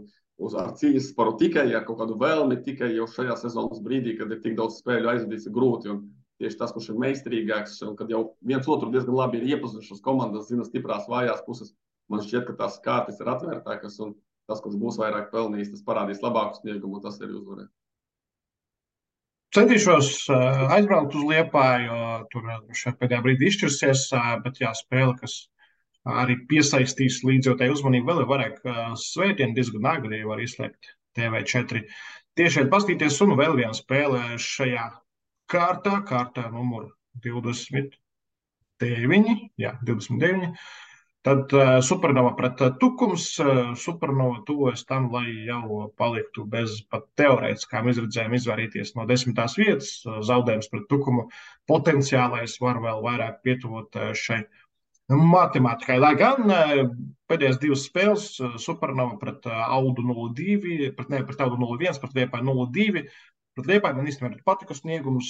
ar cīņas sparu tikai ar kaut kādu vēlmi, tikai jau šajā sezonas brīdī, kad ir tik daudz spēļu aizvadīts, ir grūti. Un tieši tas, kurš ir meistarīgāks, un kad jau viens otru diezgan labi ir iepazinušas komandas, zina stiprās vājās puses, man šķiet, ka tās kārtas ir atvērtākas, un tas, kurš būs vairāk pelnījis, tas parādīs labāku sniegumu, un tas arī uzvarēs. Centīšos aizbraukt uz Liepāju, jo tur šeit pēdējā brīdī izšķirsies, bet jā, spēle, kas arī piesaistīs līdzjūtēju uzmanību, vēl ir vairāk svētdienu diezgan agri var izslēgt TV4. Tieši pastīties, un vēl viena spēle šajā kārtā numur 29. Jā, 29. Tad Supernova pret Tukums. Supernova tuvojas tam, lai jau paliktu bez pat teorētiskām izredzēm izvairīties no 10. vietas. Zaudējums pret Tukumu potenciālais var vēl vairāk pietuvot šai matemātikai. Lai gan pēdējās divas spēles Supernova pret Audu 0-2, pret Audu 0-1, pret Liepāju 0-2. Pret Liepāju man īstenībā patika sniegums.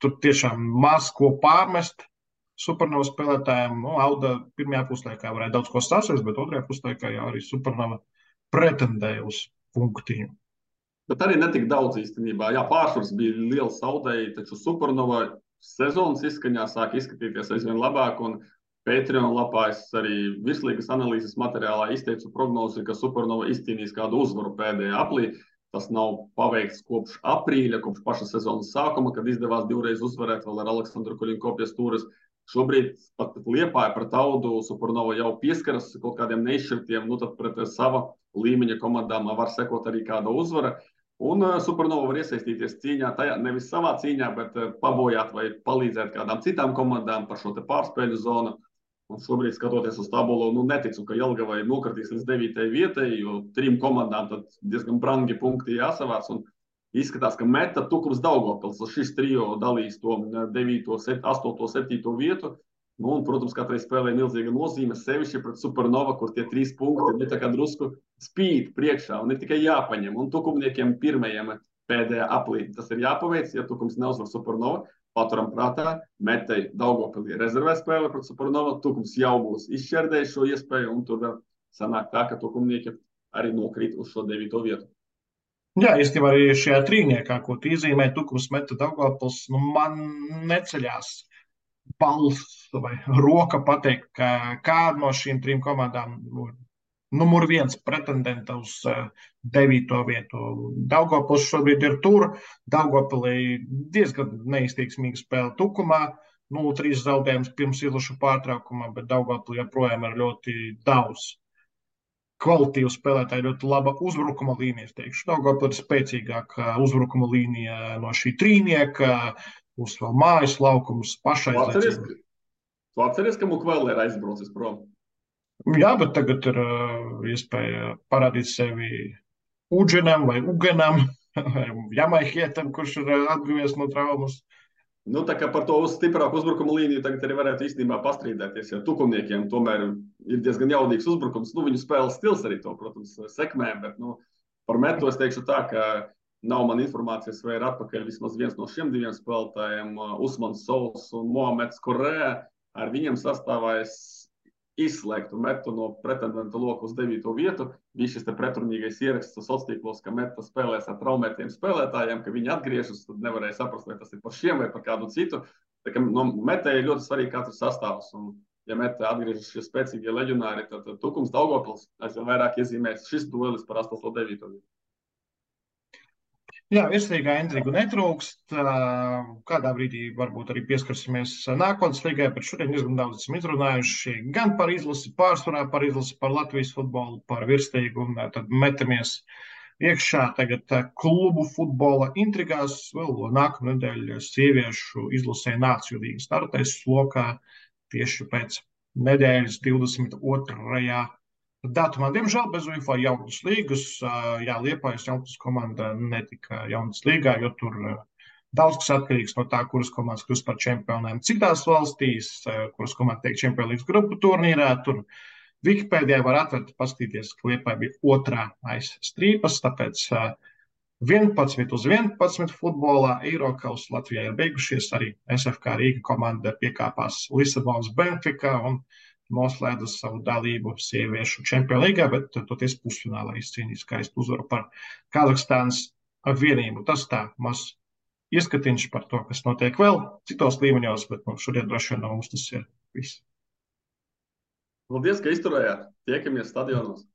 Tur tiešām maz ko pārmest Supernova spēlētājiem. Auda pirmajā puslaikā varēja daudz ko sasniegt, bet otrajā puslaikā jau arī Supernova pretendēja uz punktiņu. Bet arī netik daudz īstenībā. Jā, pārsvars bija liels zaudēji, taču Supernova sezonas izskaņā sāk izskatīties aizvien labāk, un Patreon lapā es arī virslīgas analīzes materiālā izteicu prognozi, ka Supernova izcīnīs kādu uzvaru pēdējā aplī. Tas nav paveikts kopš aprīļa, kopš paša sezonas sākuma, kad izdevās divreiz uzvarēt vēl ar Aleksandru Kuļinko pie stūres. Šobrīd pat Liepāja pret Audu Supernova jau pieskaras kaut kādiem neizšķirtiem, tad pret sava līmeņa komandām var sekot arī kāda uzvara. Un Supernova var iesaistīties cīņā, tajā nevis savā cīņā, bet pabojāt vai palīdzēt kādām citām komandām par šo te pārspēļu zonu. Un šobrīd, skatoties uz tabulu, neticu, ka Jelgavai nokritīs līdz 9. vietai, jo 3 komandām tad diezgan brangi punkti jāsavāc. Un izskatās, ka Meta, Tukums, Daugavpils šis trio dalīs to 9., 8., 7. vietu. Un, protams, katrai spēlē milzīga nozīme, sevišķi pret Supernova, kur tie 3 punkti ir tā kā drusku spīd priekšā un ir tikai jāpaņem. Un Tukumniekiem pirmajiem pēdējā aplī tas ir jāpaveic, ja Tukums neuzvar Supernova. Paturam prātā, Metai Daugavpilī rezervē spēle pret Supernova, Tukums jau būs izšķērdējis šo iespēju, un tur sanāk tā, ka Tukumnieki arī nokrīt uz šo 9. vietu. Jā, īstenībā arī šajā trīniekā, ko tu izzīmē, Tukums, Meta, Daugavpils, man neceļās balss vai roka pateikt, ka kāda no šīm 3 komandām numur 1 pretendenta uz 9. vietu. Daugavpils šobrīd ir tur. Daugavpilī diezgan neizteiksmīga spēle Tukumā. 0-3 zaudējums pirms ilguša pārtraukumā, bet Daugavpilī joprojām ir ļoti daudz kvalitīvu spēlētāju, ļoti laba uzbrukuma līnija. Es teikšu, Daugavpilī ir spēcīgāka uzbrukuma līnija no šī trīnieka. Būs vēl mājas laukums pašaizliecība. Tu atceries, ka Mukvēl ir aizbraucis prom? Jā, bet tagad ir iespēja parādīt sevi Uģenam vai Ugenam, Jamaihietam, kurš ir atguvies no traumas. Tā kā par to stiprāku uzbrukuma līniju tagad arī varētu īstenībā pastrīdēties, ja Tukumniekiem tomēr ir diezgan jaudīgs uzbrukums. Viņu spēles stils arī to, protams, sekmē, bet par Metu es teikšu tā, ka nav man informācijas, vai ir atpakaļ vismaz viens no šiem 2 spēlētājiem, Usmans Sols un Mohameds Korē. Ar viņiem sastāvā es izslēgtu Metu no pretendenta loka uz 9. vietu. Bija šis te pretrunīgais ieraksts sociālos tīklos, ka Meta spēlēs ar traumētiem spēlētājiem, ka viņi atgriežas, tad nevarēja saprast, vai tas ir par šiem vai par kādu citu. Tā kā Metai ir ļoti svarīgi katrs sastāvs. Un, ja Meta atgriežas šie spēcīgie leģionāri, tad Tukums, Daugavpils aizvien vairāk iezīmēs šis duelis par 8. un 9. vietu. Jā, virslīgā intrigu netrūkst. Kādā brīdī varbūt arī pieskarsimies nākotnes līgai, bet šodien diezgan daudz esam izrunājuši gan par izlasi pārsvarā, par izlasi par Latvijas futbolu, par virslīgu, un tad metamies iekšā tagad klubu futbola intrigās. Vēl nākamā nedēļa sieviešu izlasē Nāciju līga startēs lokā tieši pēc nedēļas 22. datumā. Diemžēl bez UEFA jaunas līgas. Jā, Liepājas jaunas komanda netika jaunas līgā, jo tur daudz kas atkarīgs no tā, kuras komandas kļūst par čempioniem citās valstīs, kuras komanda tiek Champions League grupu turnīrā. Tur Wikipēdijā var atvērt, paskatīties, ka Liepāja bija 2. aiz strīpas, tāpēc 11-11 futbolā Eirokausa Latvijā ir beigušies. Arī SFK Rīga komanda piekāpās Lisabonas Benfica un noslēdza savu dalību sieviešu čempionu līgā, bet toties pusfinālā izcīnīja skaistu uzvaru par Kazahstānas vienību. Tas tā maz ieskatiņš par to, kas notiek vēl citos līmeņos, bet šodien droši vien no mums tas ir viss. Paldies, ka izturējāt. Tiekamies stadionos.